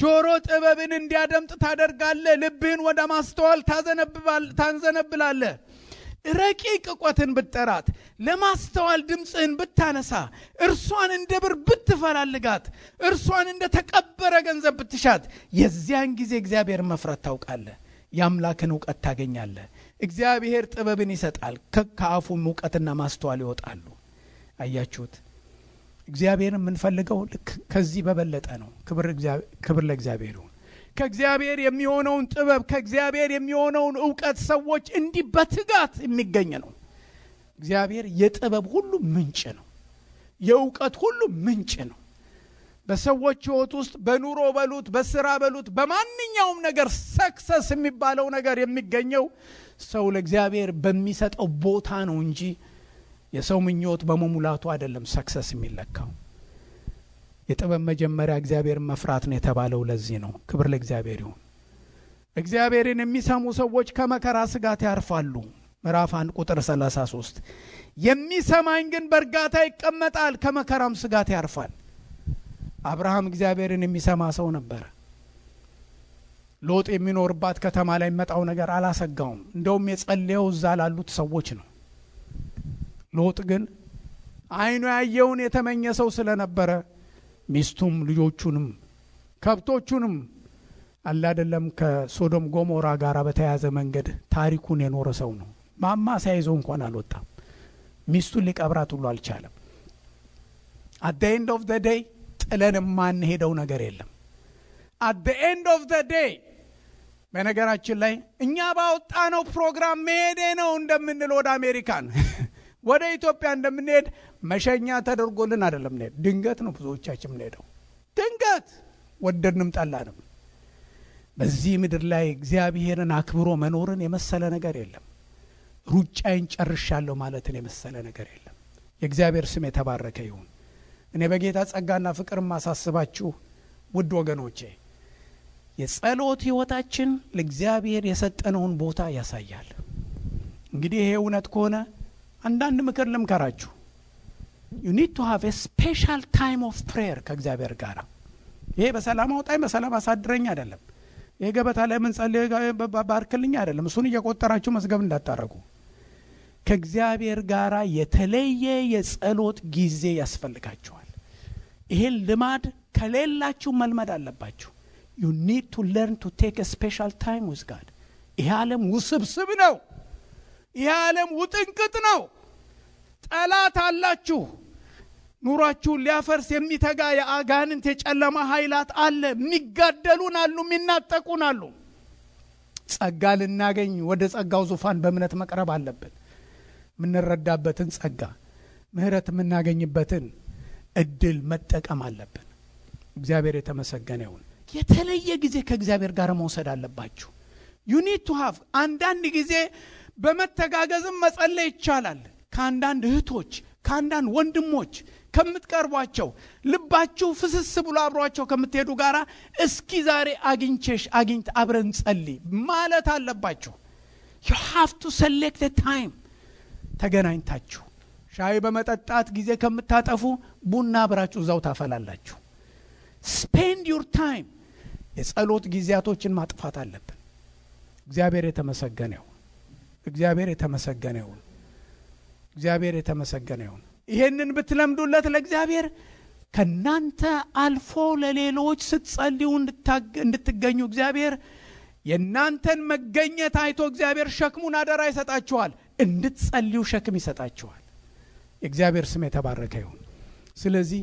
ጆሮ ጥበብን እንዲያደምጥ ታደርጋለህ፣ ልብህን ወደ ማስተዋል ታንዘነብላለህ። ረቂቅ እውቀትን ብትጠራት፣ ለማስተዋል ድምፅህን ብታነሳ፣ እርሷን እንደ ብር ብትፈላልጋት፣ እርሷን እንደ ተቀበረ ገንዘብ ብትሻት፣ የዚያን ጊዜ እግዚአብሔር መፍራት ታውቃለህ፣ የአምላክን እውቀት ታገኛለህ። እግዚአብሔር ጥበብን ይሰጣል፣ ከአፉም እውቀትና ማስተዋል ይወጣሉ። አያችሁት? እግዚአብሔር የምንፈልገው ከዚህ በበለጠ ነው። ክብር ለእግዚአብሔር ይሁን። ከእግዚአብሔር የሚሆነውን ጥበብ፣ ከእግዚአብሔር የሚሆነውን እውቀት ሰዎች እንዲህ በትጋት የሚገኝ ነው። እግዚአብሔር የጥበብ ሁሉ ምንጭ ነው። የእውቀት ሁሉ ምንጭ ነው። በሰዎች ሕይወት ውስጥ በኑሮ በሉት፣ በስራ በሉት፣ በማንኛውም ነገር ሰክሰስ የሚባለው ነገር የሚገኘው ሰው ለእግዚአብሔር በሚሰጠው ቦታ ነው እንጂ የሰው ምኞት በመሙላቱ አይደለም ሰክሰስ የሚለካው። የጥበብ መጀመሪያ እግዚአብሔር መፍራት ነው የተባለው ለዚህ ነው። ክብር ለእግዚአብሔር ይሁን። እግዚአብሔርን የሚሰሙ ሰዎች ከመከራ ስጋት ያርፋሉ። ምዕራፍ 1 ቁጥር 33 የሚሰማኝ ግን በእርጋታ ይቀመጣል፣ ከመከራም ስጋት ያርፋል። አብርሃም እግዚአብሔርን የሚሰማ ሰው ነበር። ሎጥ የሚኖርባት ከተማ ላይ መጣው ነገር አላሰጋውም። እንደውም የጸለየው እዛ ላሉት ሰዎች ነው። ሎጥ ግን አይኑ ያየውን የተመኘ ሰው ስለነበረ ሚስቱም ልጆቹንም ከብቶቹንም አላደለም ከሶዶም ጎሞራ ጋር በተያያዘ መንገድ ታሪኩን የኖረ ሰው ነው። ማማ ሳይዘው እንኳን አልወጣም። ሚስቱን ሊቀብራት ሁሉ አልቻለም። at the end of the day ጥለን ማን ሄደው ነገር የለም። at the end of the day በነገራችን ላይ እኛ ባወጣነው ፕሮግራም መሄዴ ነው እንደምንል ወደ አሜሪካን ወደ ኢትዮጵያ እንደምንሄድ መሸኛ ተደርጎልን አይደለም። ድንገት ነው ብዙዎቻችን የምንሄደው። ድንገት ወደድንም ጠላንም። በዚህ ምድር ላይ እግዚአብሔርን አክብሮ መኖርን የመሰለ ነገር የለም። ሩጫዬን ጨርሻለሁ ማለትን የመሰለ ነገር የለም። የእግዚአብሔር ስም የተባረከ ይሁን። እኔ በጌታ ጸጋና ፍቅር ማሳስባችሁ ውድ ወገኖቼ የጸሎት ህይወታችን ለእግዚአብሔር የሰጠነውን ቦታ ያሳያል። እንግዲህ ይሄ እውነት ከሆነ አንዳንድ ምክር ልምከራችሁ። you need to have a special time of prayer ከእግዚአብሔር ጋር። ይሄ በሰላም አውጣኝ በሰላም አሳድረኝ አይደለም። ይሄ ገበታ ላይ ምን ጸልይ ባርክልኝ አይደለም። እሱን እየቆጠራችሁ መስገብ እንዳታረጉ። ከእግዚአብሔር ጋር የተለየ የጸሎት ጊዜ ያስፈልጋችኋል። ይሄን ልማድ ከሌላችሁ መልመድ አለባችሁ። you need to learn to take a special time with God። ይሄ ዓለም ውስብስብ ነው። ይሄ ዓለም ውጥንቅጥ ነው። ጠላት አላችሁ። ኑራችሁን ሊያፈርስ የሚተጋ የአጋንንት የጨለማ ኃይላት አለ። የሚጋደሉን አሉ፣ የሚናጠቁን አሉ። ጸጋ ልናገኝ ወደ ጸጋው ዙፋን በእምነት መቅረብ አለብን። ምንረዳበትን ጸጋ ምህረት የምናገኝበትን እድል መጠቀም አለብን። እግዚአብሔር የተመሰገነ ይሁን። የተለየ ጊዜ ከእግዚአብሔር ጋር መውሰድ አለባችሁ። you need to have አንዳንድ ጊዜ በመተጋገዝም መጸለይ ይቻላል። ከአንዳንድ እህቶች ከአንዳንድ ወንድሞች ከምትቀርቧቸው ልባችሁ ፍስስ ብሎ አብሯቸው ከምትሄዱ ጋራ እስኪ ዛሬ አግኝት አብረን ጸልይ ማለት አለባችሁ። you have to select a time። ተገናኝታችሁ ሻይ በመጠጣት ጊዜ ከምታጠፉ ቡና አብራችሁ እዛው ታፈላላችሁ። spend your time። የጸሎት ጊዜያቶችን ማጥፋት አለብን። እግዚአብሔር የተመሰገነ ይሁን። እግዚአብሔር የተመሰገነ ይሁን። እግዚአብሔር የተመሰገነ ይሁን። ይሄንን ብትለምዱለት ለእግዚአብሔር ከናንተ አልፎ ለሌሎች ስትጸልዩ እንድትገኙ እግዚአብሔር የናንተን መገኘት አይቶ እግዚአብሔር ሸክሙን አደራ ይሰጣችኋል። እንድትጸልዩ ሸክም ይሰጣችኋል። የእግዚአብሔር ስም የተባረከ ይሁን። ስለዚህ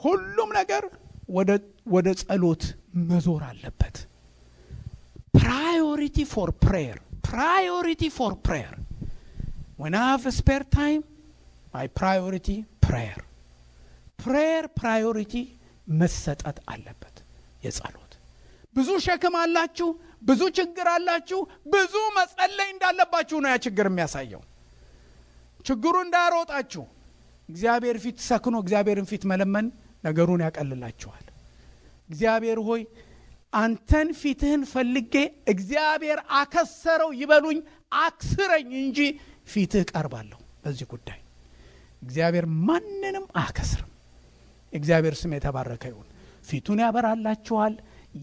ሁሉም ነገር ወደ ጸሎት መዞር አለበት። priority for prayer when I have a spare time my priority prayer priority መሰጠት አለበት። የጸሎት ብዙ ሸክም አላችሁ፣ ብዙ ችግር አላችሁ፣ ብዙ መጸለይ እንዳለባችሁ ነው ያ ችግር የሚያሳየው። ችግሩ እንዳሮጣችሁ እግዚአብሔር ፊት ሰክኖ እግዚአብሔርን ፊት መለመን ነገሩን ያቀልላችኋል። እግዚአብሔር ሆይ አንተን ፊትህን ፈልጌ እግዚአብሔር አከሰረው ይበሉኝ አክስረኝ እንጂ ፊትህ ቀርባለሁ። በዚህ ጉዳይ እግዚአብሔር ማንንም አከስርም። እግዚአብሔር ስም የተባረከ ይሁን። ፊቱን ያበራላችኋል፣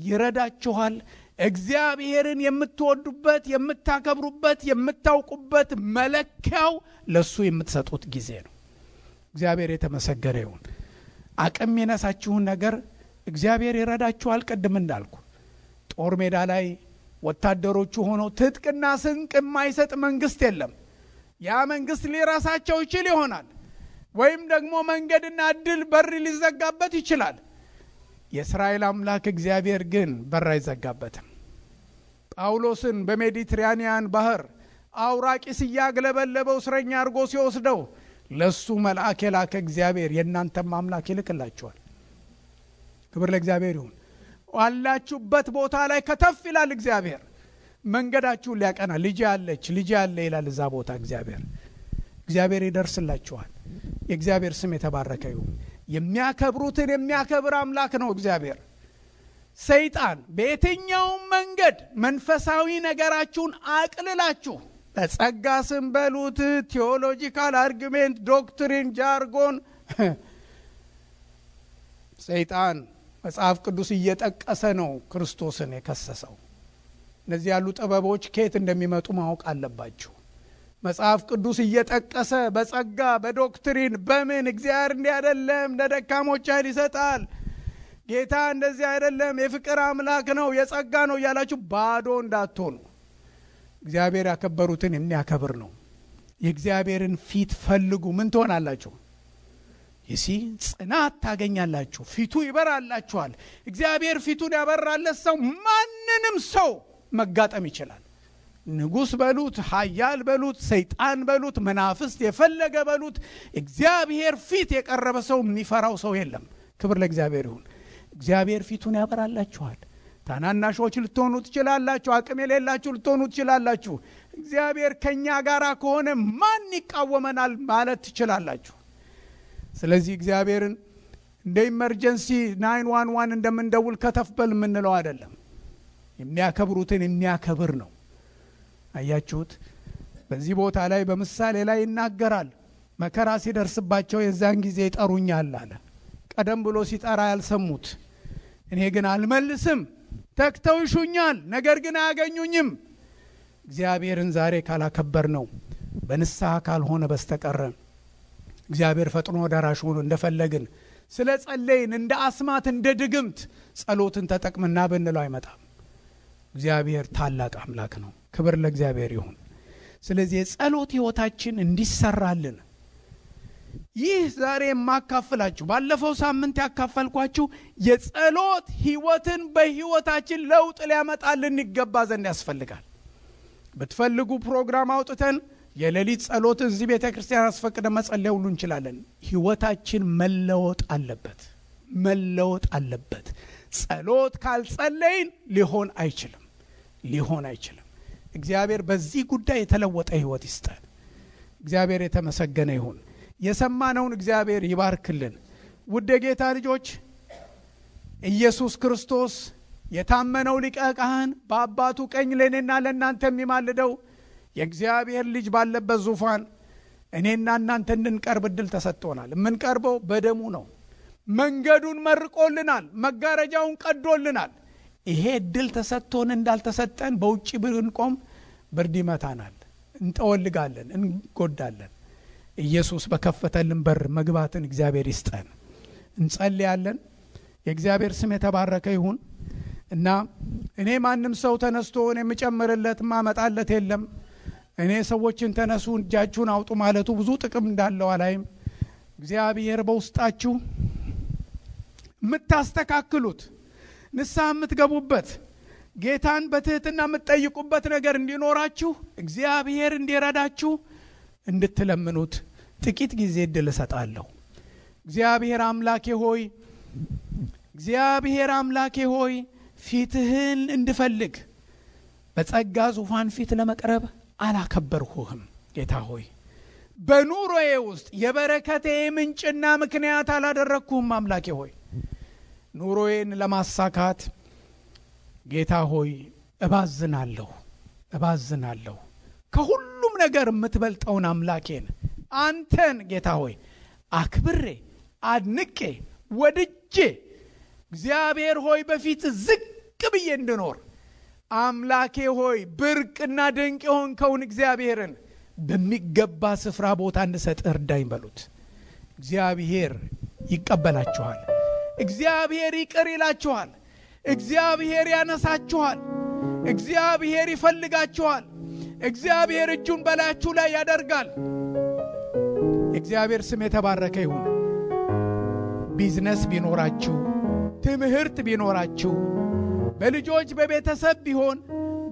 ይረዳችኋል። እግዚአብሔርን የምትወዱበት የምታከብሩበት የምታውቁበት መለኪያው ለሱ የምትሰጡት ጊዜ ነው። እግዚአብሔር የተመሰገነ ይሁን። አቅም የነሳችሁን ነገር እግዚአብሔር ይረዳችኋል። ቀድም እንዳልኩ ጦር ሜዳ ላይ ወታደሮቹ ሆነው ትጥቅና ስንቅ የማይሰጥ መንግስት የለም። ያ መንግስት ሊራሳቸው ይችል ይሆናል፣ ወይም ደግሞ መንገድና እድል በር ሊዘጋበት ይችላል። የእስራኤል አምላክ እግዚአብሔር ግን በር አይዘጋበትም። ጳውሎስን በሜዲትራኒያን ባህር አውራቂስ ያገለበለበው እስረኛ አድርጎ ሲወስደው ለሱ መልአክ የላከ እግዚአብሔር የእናንተም አምላክ ይልክላችኋል። ክብር ለእግዚአብሔር ይሁን። ዋላችሁበት ቦታ ላይ ከተፍ ይላል እግዚአብሔር። መንገዳችሁን ሊያቀና ልጅ ያለ ይላል እዛ ቦታ እግዚአብሔር ይደርስላችኋል። የእግዚአብሔር ስም የተባረከ ይሁን። የሚያከብሩትን የሚያከብር አምላክ ነው እግዚአብሔር። ሰይጣን በየትኛው መንገድ መንፈሳዊ ነገራችሁን አቅልላችሁ በጸጋ ስም በሉት፣ ቴዎሎጂካል አርጊሜንት፣ ዶክትሪን፣ ጃርጎን ሰይጣን መጽሐፍ ቅዱስ እየጠቀሰ ነው ክርስቶስን የከሰሰው። እነዚህ ያሉ ጥበቦች ከየት እንደሚመጡ ማወቅ አለባችሁ። መጽሐፍ ቅዱስ እየጠቀሰ በጸጋ በዶክትሪን በምን እግዚአብሔር እንዲህ አይደለም፣ ለደካሞች ኃይል ይሰጣል፣ ጌታ እንደዚህ አይደለም፣ የፍቅር አምላክ ነው፣ የጸጋ ነው እያላችሁ ባዶ እንዳትሆኑ። እግዚአብሔር ያከበሩትን የሚያከብር ነው። የእግዚአብሔርን ፊት ፈልጉ። ምን ትሆናላችሁ? ጽናት ታገኛላችሁ። ፊቱ ይበራላችኋል። እግዚአብሔር ፊቱን ያበራለት ሰው ማንንም ሰው መጋጠም ይችላል። ንጉስ በሉት፣ ኃያል በሉት፣ ሰይጣን በሉት፣ መናፍስት የፈለገ በሉት፣ እግዚአብሔር ፊት የቀረበ ሰው የሚፈራው ሰው የለም። ክብር ለእግዚአብሔር ይሁን። እግዚአብሔር ፊቱን ያበራላችኋል። ታናናሾች ልትሆኑ ትችላላችሁ፣ አቅም የሌላችሁ ልትሆኑ ትችላላችሁ። እግዚአብሔር ከኛ ጋር ከሆነ ማን ይቃወመናል ማለት ትችላላችሁ። ስለዚህ እግዚአብሔርን እንደ ኢመርጀንሲ 911 እንደምንደውል ከተፍበል የምንለው አይደለም። የሚያከብሩትን የሚያከብር ነው። አያችሁት? በዚህ ቦታ ላይ በምሳሌ ላይ ይናገራል። መከራ ሲደርስባቸው የዛን ጊዜ ይጠሩኛል አለ። ቀደም ብሎ ሲጠራ ያልሰሙት፣ እኔ ግን አልመልስም፣ ተክተው ይሹኛል፣ ነገር ግን አያገኙኝም። እግዚአብሔርን ዛሬ ካላከበር ነው በንስሐ ካልሆነ በስተቀር እግዚአብሔር ፈጥኖ ደራሽ ሆኖ እንደፈለግን ስለ ጸለይን እንደ አስማት እንደ ድግምት ጸሎትን ተጠቅመና ብንለው አይመጣም። እግዚአብሔር ታላቅ አምላክ ነው። ክብር ለእግዚአብሔር ይሁን። ስለዚህ የጸሎት ህይወታችን እንዲሰራልን ይህ ዛሬ የማካፈላችሁ ባለፈው ሳምንት ያካፈልኳችሁ የጸሎት ህይወትን በህይወታችን ለውጥ ሊያመጣልን ይገባ ዘንድ ያስፈልጋል። በትፈልጉ ፕሮግራም አውጥተን የሌሊት ጸሎት እዚህ ቤተክርስቲያን አስፈቅደ መጸለይ ሁሉ እንችላለን። ህይወታችን መለወጥ አለበት፣ መለወጥ አለበት። ጸሎት ካልጸለይን ሊሆን አይችልም። እግዚአብሔር በዚህ ጉዳይ የተለወጠ ህይወት ይስጠን። እግዚአብሔር የተመሰገነ ይሁን። የሰማነውን እግዚአብሔር ይባርክልን። ውድ ጌታ ልጆች፣ ኢየሱስ ክርስቶስ የታመነው ሊቀ ካህን በአባቱ ቀኝ ለኔና ለእናንተ የሚማልደው የእግዚአብሔር ልጅ ባለበት ዙፋን እኔና እናንተ እንድንቀርብ እድል ተሰጥቶናል። የምንቀርበው በደሙ ነው። መንገዱን መርቆልናል፣ መጋረጃውን ቀዶልናል። ይሄ እድል ተሰጥቶን እንዳልተሰጠን በውጪ ብንቆም ብርድ ይመታናል፣ እንጠወልጋለን፣ እንጎዳለን። ኢየሱስ በከፈተልን በር መግባትን እግዚአብሔር ይስጠን። እንጸልያለን። የእግዚአብሔር ስም የተባረከ ይሁን እና እኔ ማንም ሰው ተነስቶ እኔ የምጨምርለት ማመጣለት የለም። እኔ ሰዎችን ተነሱ እጃችሁን አውጡ ማለቱ ብዙ ጥቅም እንዳለው አላይም። እግዚአብሔር በውስጣችሁ የምታስተካክሉት ንስሐ የምትገቡበት ጌታን በትህትና የምትጠይቁበት ነገር እንዲኖራችሁ እግዚአብሔር እንዲረዳችሁ እንድትለምኑት ጥቂት ጊዜ እድል እሰጣለሁ። እግዚአብሔር አምላኬ ሆይ ፊትህን እንድፈልግ በጸጋ ዙፋን ፊት ለመቅረብ አላከበርሁህም። ጌታ ሆይ በኑሮዬ ውስጥ የበረከቴ ምንጭና ምክንያት አላደረግኩህም። አምላኬ ሆይ ኑሮዬን ለማሳካት ጌታ ሆይ እባዝናለሁ። ከሁሉም ነገር የምትበልጠውን አምላኬን አንተን ጌታ ሆይ አክብሬ አድንቄ ወድጄ እግዚአብሔር ሆይ በፊት ዝቅ ብዬ እንድኖር አምላኬ ሆይ ብርቅና ድንቅ የሆንከውን እግዚአብሔርን በሚገባ ስፍራ ቦታ እንድሰጥ እርዳኝ በሉት። እግዚአብሔር ይቀበላችኋል። እግዚአብሔር ይቅር ይላችኋል። እግዚአብሔር ያነሳችኋል። እግዚአብሔር ይፈልጋችኋል። እግዚአብሔር እጁን በላያችሁ ላይ ያደርጋል። እግዚአብሔር ስም የተባረከ ይሁን። ቢዝነስ ቢኖራችሁ፣ ትምህርት ቢኖራችሁ፣ በልጆች በቤተሰብ ቢሆን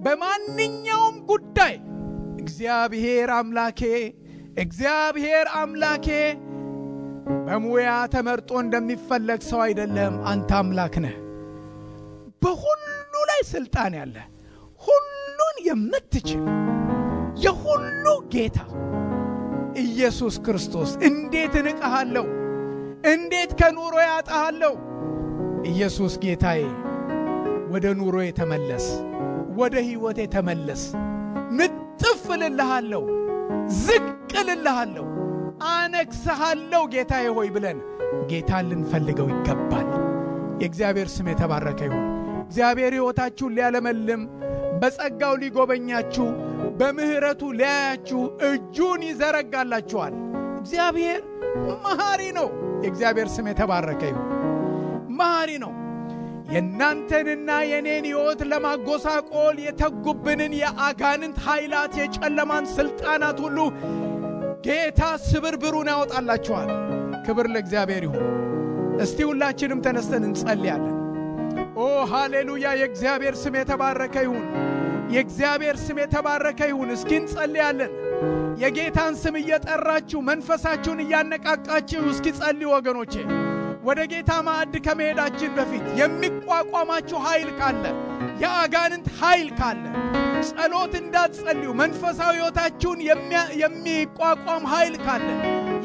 በማንኛውም ጉዳይ እግዚአብሔር አምላኬ በሙያ ተመርጦ እንደሚፈለግ ሰው አይደለም። አንተ አምላክ ነህ። በሁሉ ላይ ስልጣን ያለ፣ ሁሉን የምትችል የሁሉ ጌታ ኢየሱስ ክርስቶስ እንዴት እንቀሃለሁ፣ እንዴት ከኑሮ ያጣሃለሁ። ኢየሱስ ጌታዬ ወደ ኑሮዬ ተመለስ፣ ወደ ህይወቴ ተመለስ። እጥፍልልሃለሁ ዝቅልልሃለሁ አነክስሃለሁ ጌታዬ ሆይ ብለን ጌታን ልንፈልገው ይገባል። የእግዚአብሔር ስም የተባረከ ይሁን። እግዚአብሔር ሕይወታችሁን ሊያለመልም በጸጋው ሊጎበኛችሁ በምህረቱ ሊያያችሁ እጁን ይዘረጋላችኋል። እግዚአብሔር መሐሪ ነው። የእግዚአብሔር ስም የተባረከ ይሁን። መሐሪ ነው። የእናንተንና የኔን ሕይወት ለማጎሳቆል የተጉብንን የአጋንንት ኃይላት የጨለማን ሥልጣናት ሁሉ ጌታ ስብርብሩን ያወጣላችኋል። ክብር ለእግዚአብሔር ይሁን። እስቲ ሁላችንም ተነስተን እንጸልያለን። ኦ ሃሌሉያ! የእግዚአብሔር ስም የተባረከ ይሁን። የእግዚአብሔር ስም የተባረከ ይሁን። እስኪ እንጸልያለን። የጌታን ስም እየጠራችሁ መንፈሳችሁን እያነቃቃችሁ እስኪ ጸልዩ ወገኖቼ። ወደ ጌታ ማዕድ ከመሄዳችን በፊት የሚቋቋማችሁ ኃይል ካለ፣ የአጋንንት ኃይል ካለ ጸሎት እንዳትጸልዩ መንፈሳዊ ሕይወታችሁን የሚቋቋም ኃይል ካለ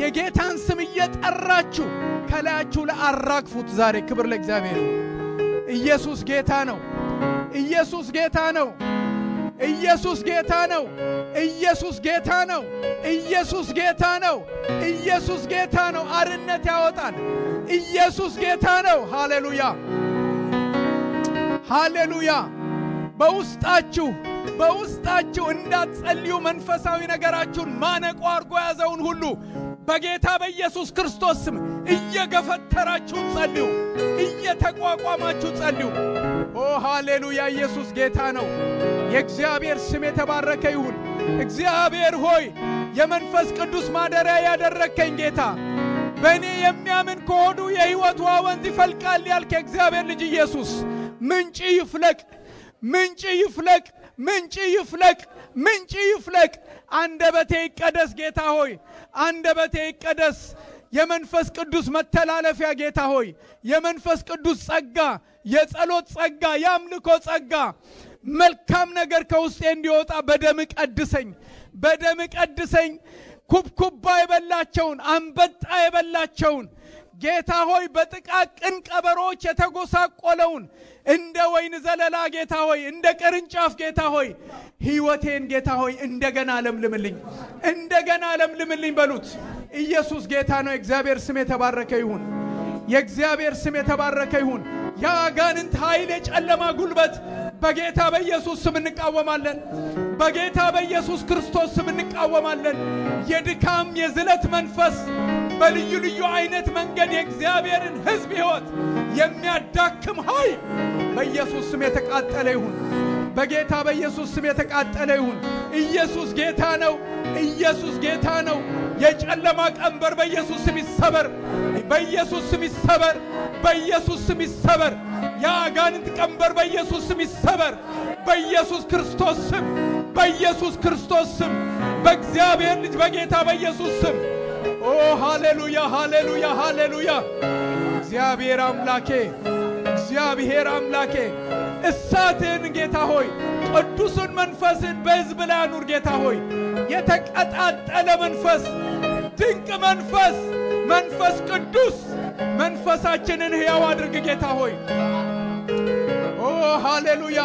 የጌታን ስም እየጠራችሁ ከላያችሁ ለአራግፉት ዛሬ። ክብር ለእግዚአብሔር ይሁን። ኢየሱስ ጌታ ነው። ኢየሱስ ጌታ ነው። ኢየሱስ ጌታ ነው። ኢየሱስ ጌታ ነው። ኢየሱስ ጌታ ነው። ኢየሱስ ጌታ ነው። አርነት ያወጣል። ኢየሱስ ጌታ ነው። ሃሌሉያ ሃሌሉያ። በውስጣችሁ እንዳትጸልዩ መንፈሳዊ ነገራችሁን ማነቆ አርጎ ያዘውን ሁሉ በጌታ በኢየሱስ ክርስቶስ ስም እየገፈተራችሁ ጸልዩ፣ እየተቋቋማችሁ ጸልዩ። ኦ ሃሌሉያ! ኢየሱስ ጌታ ነው። የእግዚአብሔር ስም የተባረከ ይሁን። እግዚአብሔር ሆይ የመንፈስ ቅዱስ ማደሪያ ያደረከኝ ጌታ፣ በእኔ የሚያምን ከሆዱ የሕይወት ውሃ ወንዝ ይፈልቃል ያልክ የእግዚአብሔር ልጅ ኢየሱስ፣ ምንጭ ይፍለቅ፣ ምንጭ ይፍለቅ፣ ምንጭ ይፍለቅ፣ ምንጭ ይፍለቅ። አንደበቴ ይቀደስ ጌታ ሆይ፣ አንደበቴ ይቀደስ። የመንፈስ ቅዱስ መተላለፊያ ጌታ ሆይ፣ የመንፈስ ቅዱስ ጸጋ፣ የጸሎት ጸጋ፣ የአምልኮ ጸጋ፣ መልካም ነገር ከውስጤ እንዲወጣ በደም ቀድሰኝ፣ በደም ቀድሰኝ። ኩብኩባ የበላቸውን አንበጣ የበላቸውን ጌታ ሆይ በጥቃቅን ቀበሮች የተጎሳቆለውን እንደ ወይን ዘለላ ጌታ ሆይ፣ እንደ ቅርንጫፍ ጌታ ሆይ ሕይወቴን ጌታ ሆይ እንደገና ለምልምልኝ፣ እንደገና ለምልምልኝ በሉት። ኢየሱስ ጌታ ነው። የእግዚአብሔር ስም የተባረከ ይሁን። የእግዚአብሔር ስም የተባረከ ይሁን። የአጋንንት ኃይል፣ የጨለማ ጉልበት በጌታ በኢየሱስ ስም እንቃወማለን። በጌታ በኢየሱስ ክርስቶስ ስም እንቃወማለን። የድካም የዝለት መንፈስ በልዩ ልዩ አይነት መንገድ የእግዚአብሔርን ሕዝብ ሕይወት የሚያዳክም ኃይል በኢየሱስ ስም የተቃጠለ ይሁን። በጌታ በኢየሱስ ስም የተቃጠለ ይሁን። ኢየሱስ ጌታ ነው። ኢየሱስ ጌታ ነው። የጨለማ ቀንበር በኢየሱስ ስም ይሰበር፣ በኢየሱስ ስም ይሰበር፣ በኢየሱስ ስም ይሰበር። የአጋንንት ቀንበር በኢየሱስ ስም ይሰበር፣ በኢየሱስ ክርስቶስ ስም፣ በኢየሱስ ክርስቶስ ስም፣ በእግዚአብሔር ልጅ በጌታ በኢየሱስ ስም። ኦ ሃሌሉያ ሃሌሉያ ሃሌሉያ። እግዚአብሔር አምላኬ፣ እግዚአብሔር አምላኬ እሳትን ጌታ ሆይ ቅዱስን መንፈስን በሕዝብ ላይ አኑር ጌታ ሆይ። የተቀጣጠለ መንፈስ፣ ድንቅ መንፈስ፣ መንፈስ ቅዱስ መንፈሳችንን ሕያው አድርግ ጌታ ሆይ። ኦ ሃሌሉያ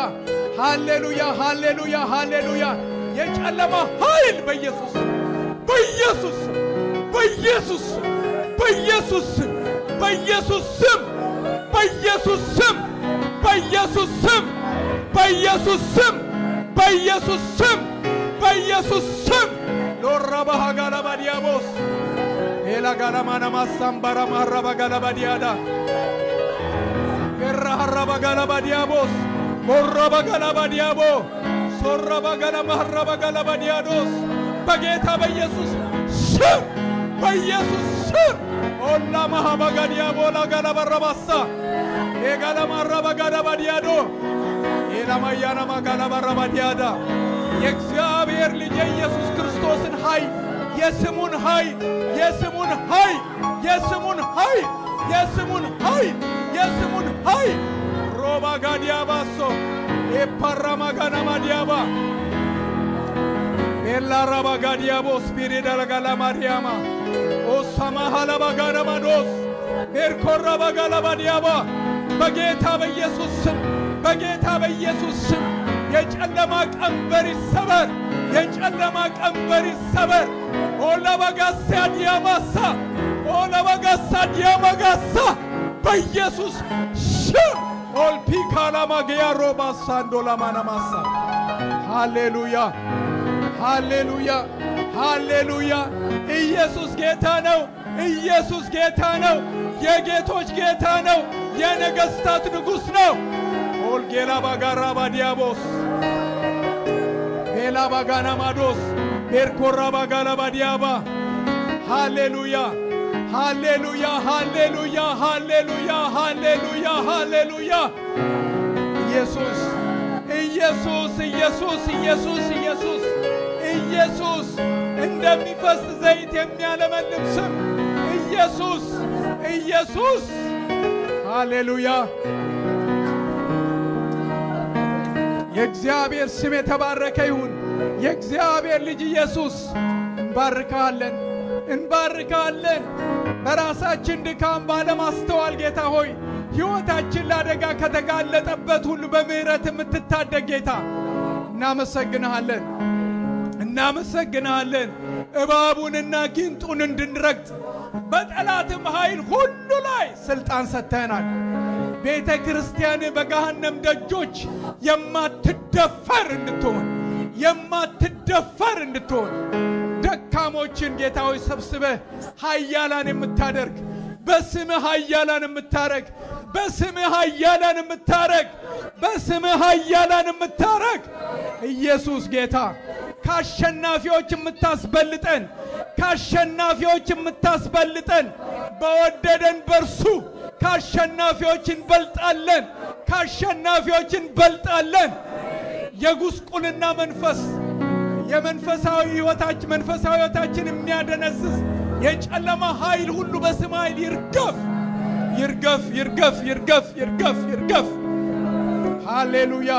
ሃሌሉያ ሃሌሉያ ሃሌሉያ። የጨለማ ኃይል በኢየሱስ በኢየሱስ በኢየሱስ በኢየሱስ በኢየሱስ ስም በኢየሱስ ስም በኢየሱስ ስም በኢየሱስ ስም በኢየሱስ ስም በኢየሱስ ስም ሎራባሃ ጋላባዲያቦስ ኤላ ጋላማና ማሳምባራ ማራባ ጋላባዲያዳ ገራሃራባ ጋላባዲያቦስ ሞራባ ጋላባዲያቦ ሶራባ ጋላማራባ ጋላባዲያዶስ በጌታ በኢየሱስ ስም በኢየሱስ ስም ኦላ ማሃባጋዲያቦ ላጋላባራባሳ ኤጋላማራባ ጋላባዲያዶ ኤላማያና ማጋላባራባዲያዳ የእግዚአብሔር ልጅ የኢየሱስ ክርስቶስን ኃይል፣ የስሙን ኃይል፣ የስሙን ኃይል፣ የስሙን ኃይል፣ የስሙን ኃይል፣ የስሙን ኃይል ሮባ ጋዲያባሶ ኤፓራማ ጋናማ ዲያባ ኤላራባ ጋዲያቦ ስፒሪዳ ለጋላ ማርያማ ኦሳማ ሐላባ ጋናማዶስ ኤርኮራባ ጋላባ ዲያባ በጌታ በኢየሱስ ስም፣ በጌታ በኢየሱስ ስም፣ የጨለማ ቀንበር ይሰበር የጨለማ ቀንበር ይሰበር ኦላባጋሳ ዲያማሳ ኦላባጋሳ ዲያማጋሳ በኢየሱስ ስም ኦልፒካላ ማግያ ሮባሳ እንዶላማናማሳ ሃሌሉያ ሃሌሉያ ሃሌሉያ ኢየሱስ ጌታ ነው ኢየሱስ ጌታ ነው የጌቶች ጌታ ነው የነገስታት ንጉስ ነው ኦልጌላ ባጋራ ባዲያቦስ ኤላ ባጋና ማዶስ ኤርኮራ ባጋላ ባዲያባ ሃሌሉያ ሃሌሉያ ሃሌሉያ ሃሌሉያ ሃሌሉያ ሃሌሉያ ኢየሱስ ኢየሱስ ኢየሱስ ኢየሱስ ኢየሱስ ኢየሱስ እንደሚፈስ ዘይት የሚያለመልም ስም ኢየሱስ ኢየሱስ ሃሌሉያ የእግዚአብሔር ስም የተባረከ ይሁን የእግዚአብሔር ልጅ ኢየሱስ እንባርካለን በራሳችን ድካም ባለማስተዋል ጌታ ሆይ ሕይወታችን ለአደጋ ከተጋለጠበት ሁሉ በምህረት የምትታደግ ጌታ እናመሰግንሃለን እባቡንና ጊንጡን እንድንረግጥ በጠላትም ኃይል ሁሉ ላይ ስልጣን ሰጥተናል ቤተ ክርስቲያን በገሃነም ደጆች የማትደፈር እንድትሆን ደካሞችን ጌታ ሆይ ሰብስበህ ኃያላን የምታደርግ በስምህ ኃያላን የምታረግ ኢየሱስ ጌታ ካሸናፊዎች የምታስበልጠን በወደደን በርሱ ካሸናፊዎች እንበልጣለን የጉስቁልና መንፈስ የመንፈሳዊ ሕይወታችን የሚያደነዝዝ የጨለማ ኃይል ሁሉ በስም ኃይል ይርገፍ ሃሌሉያ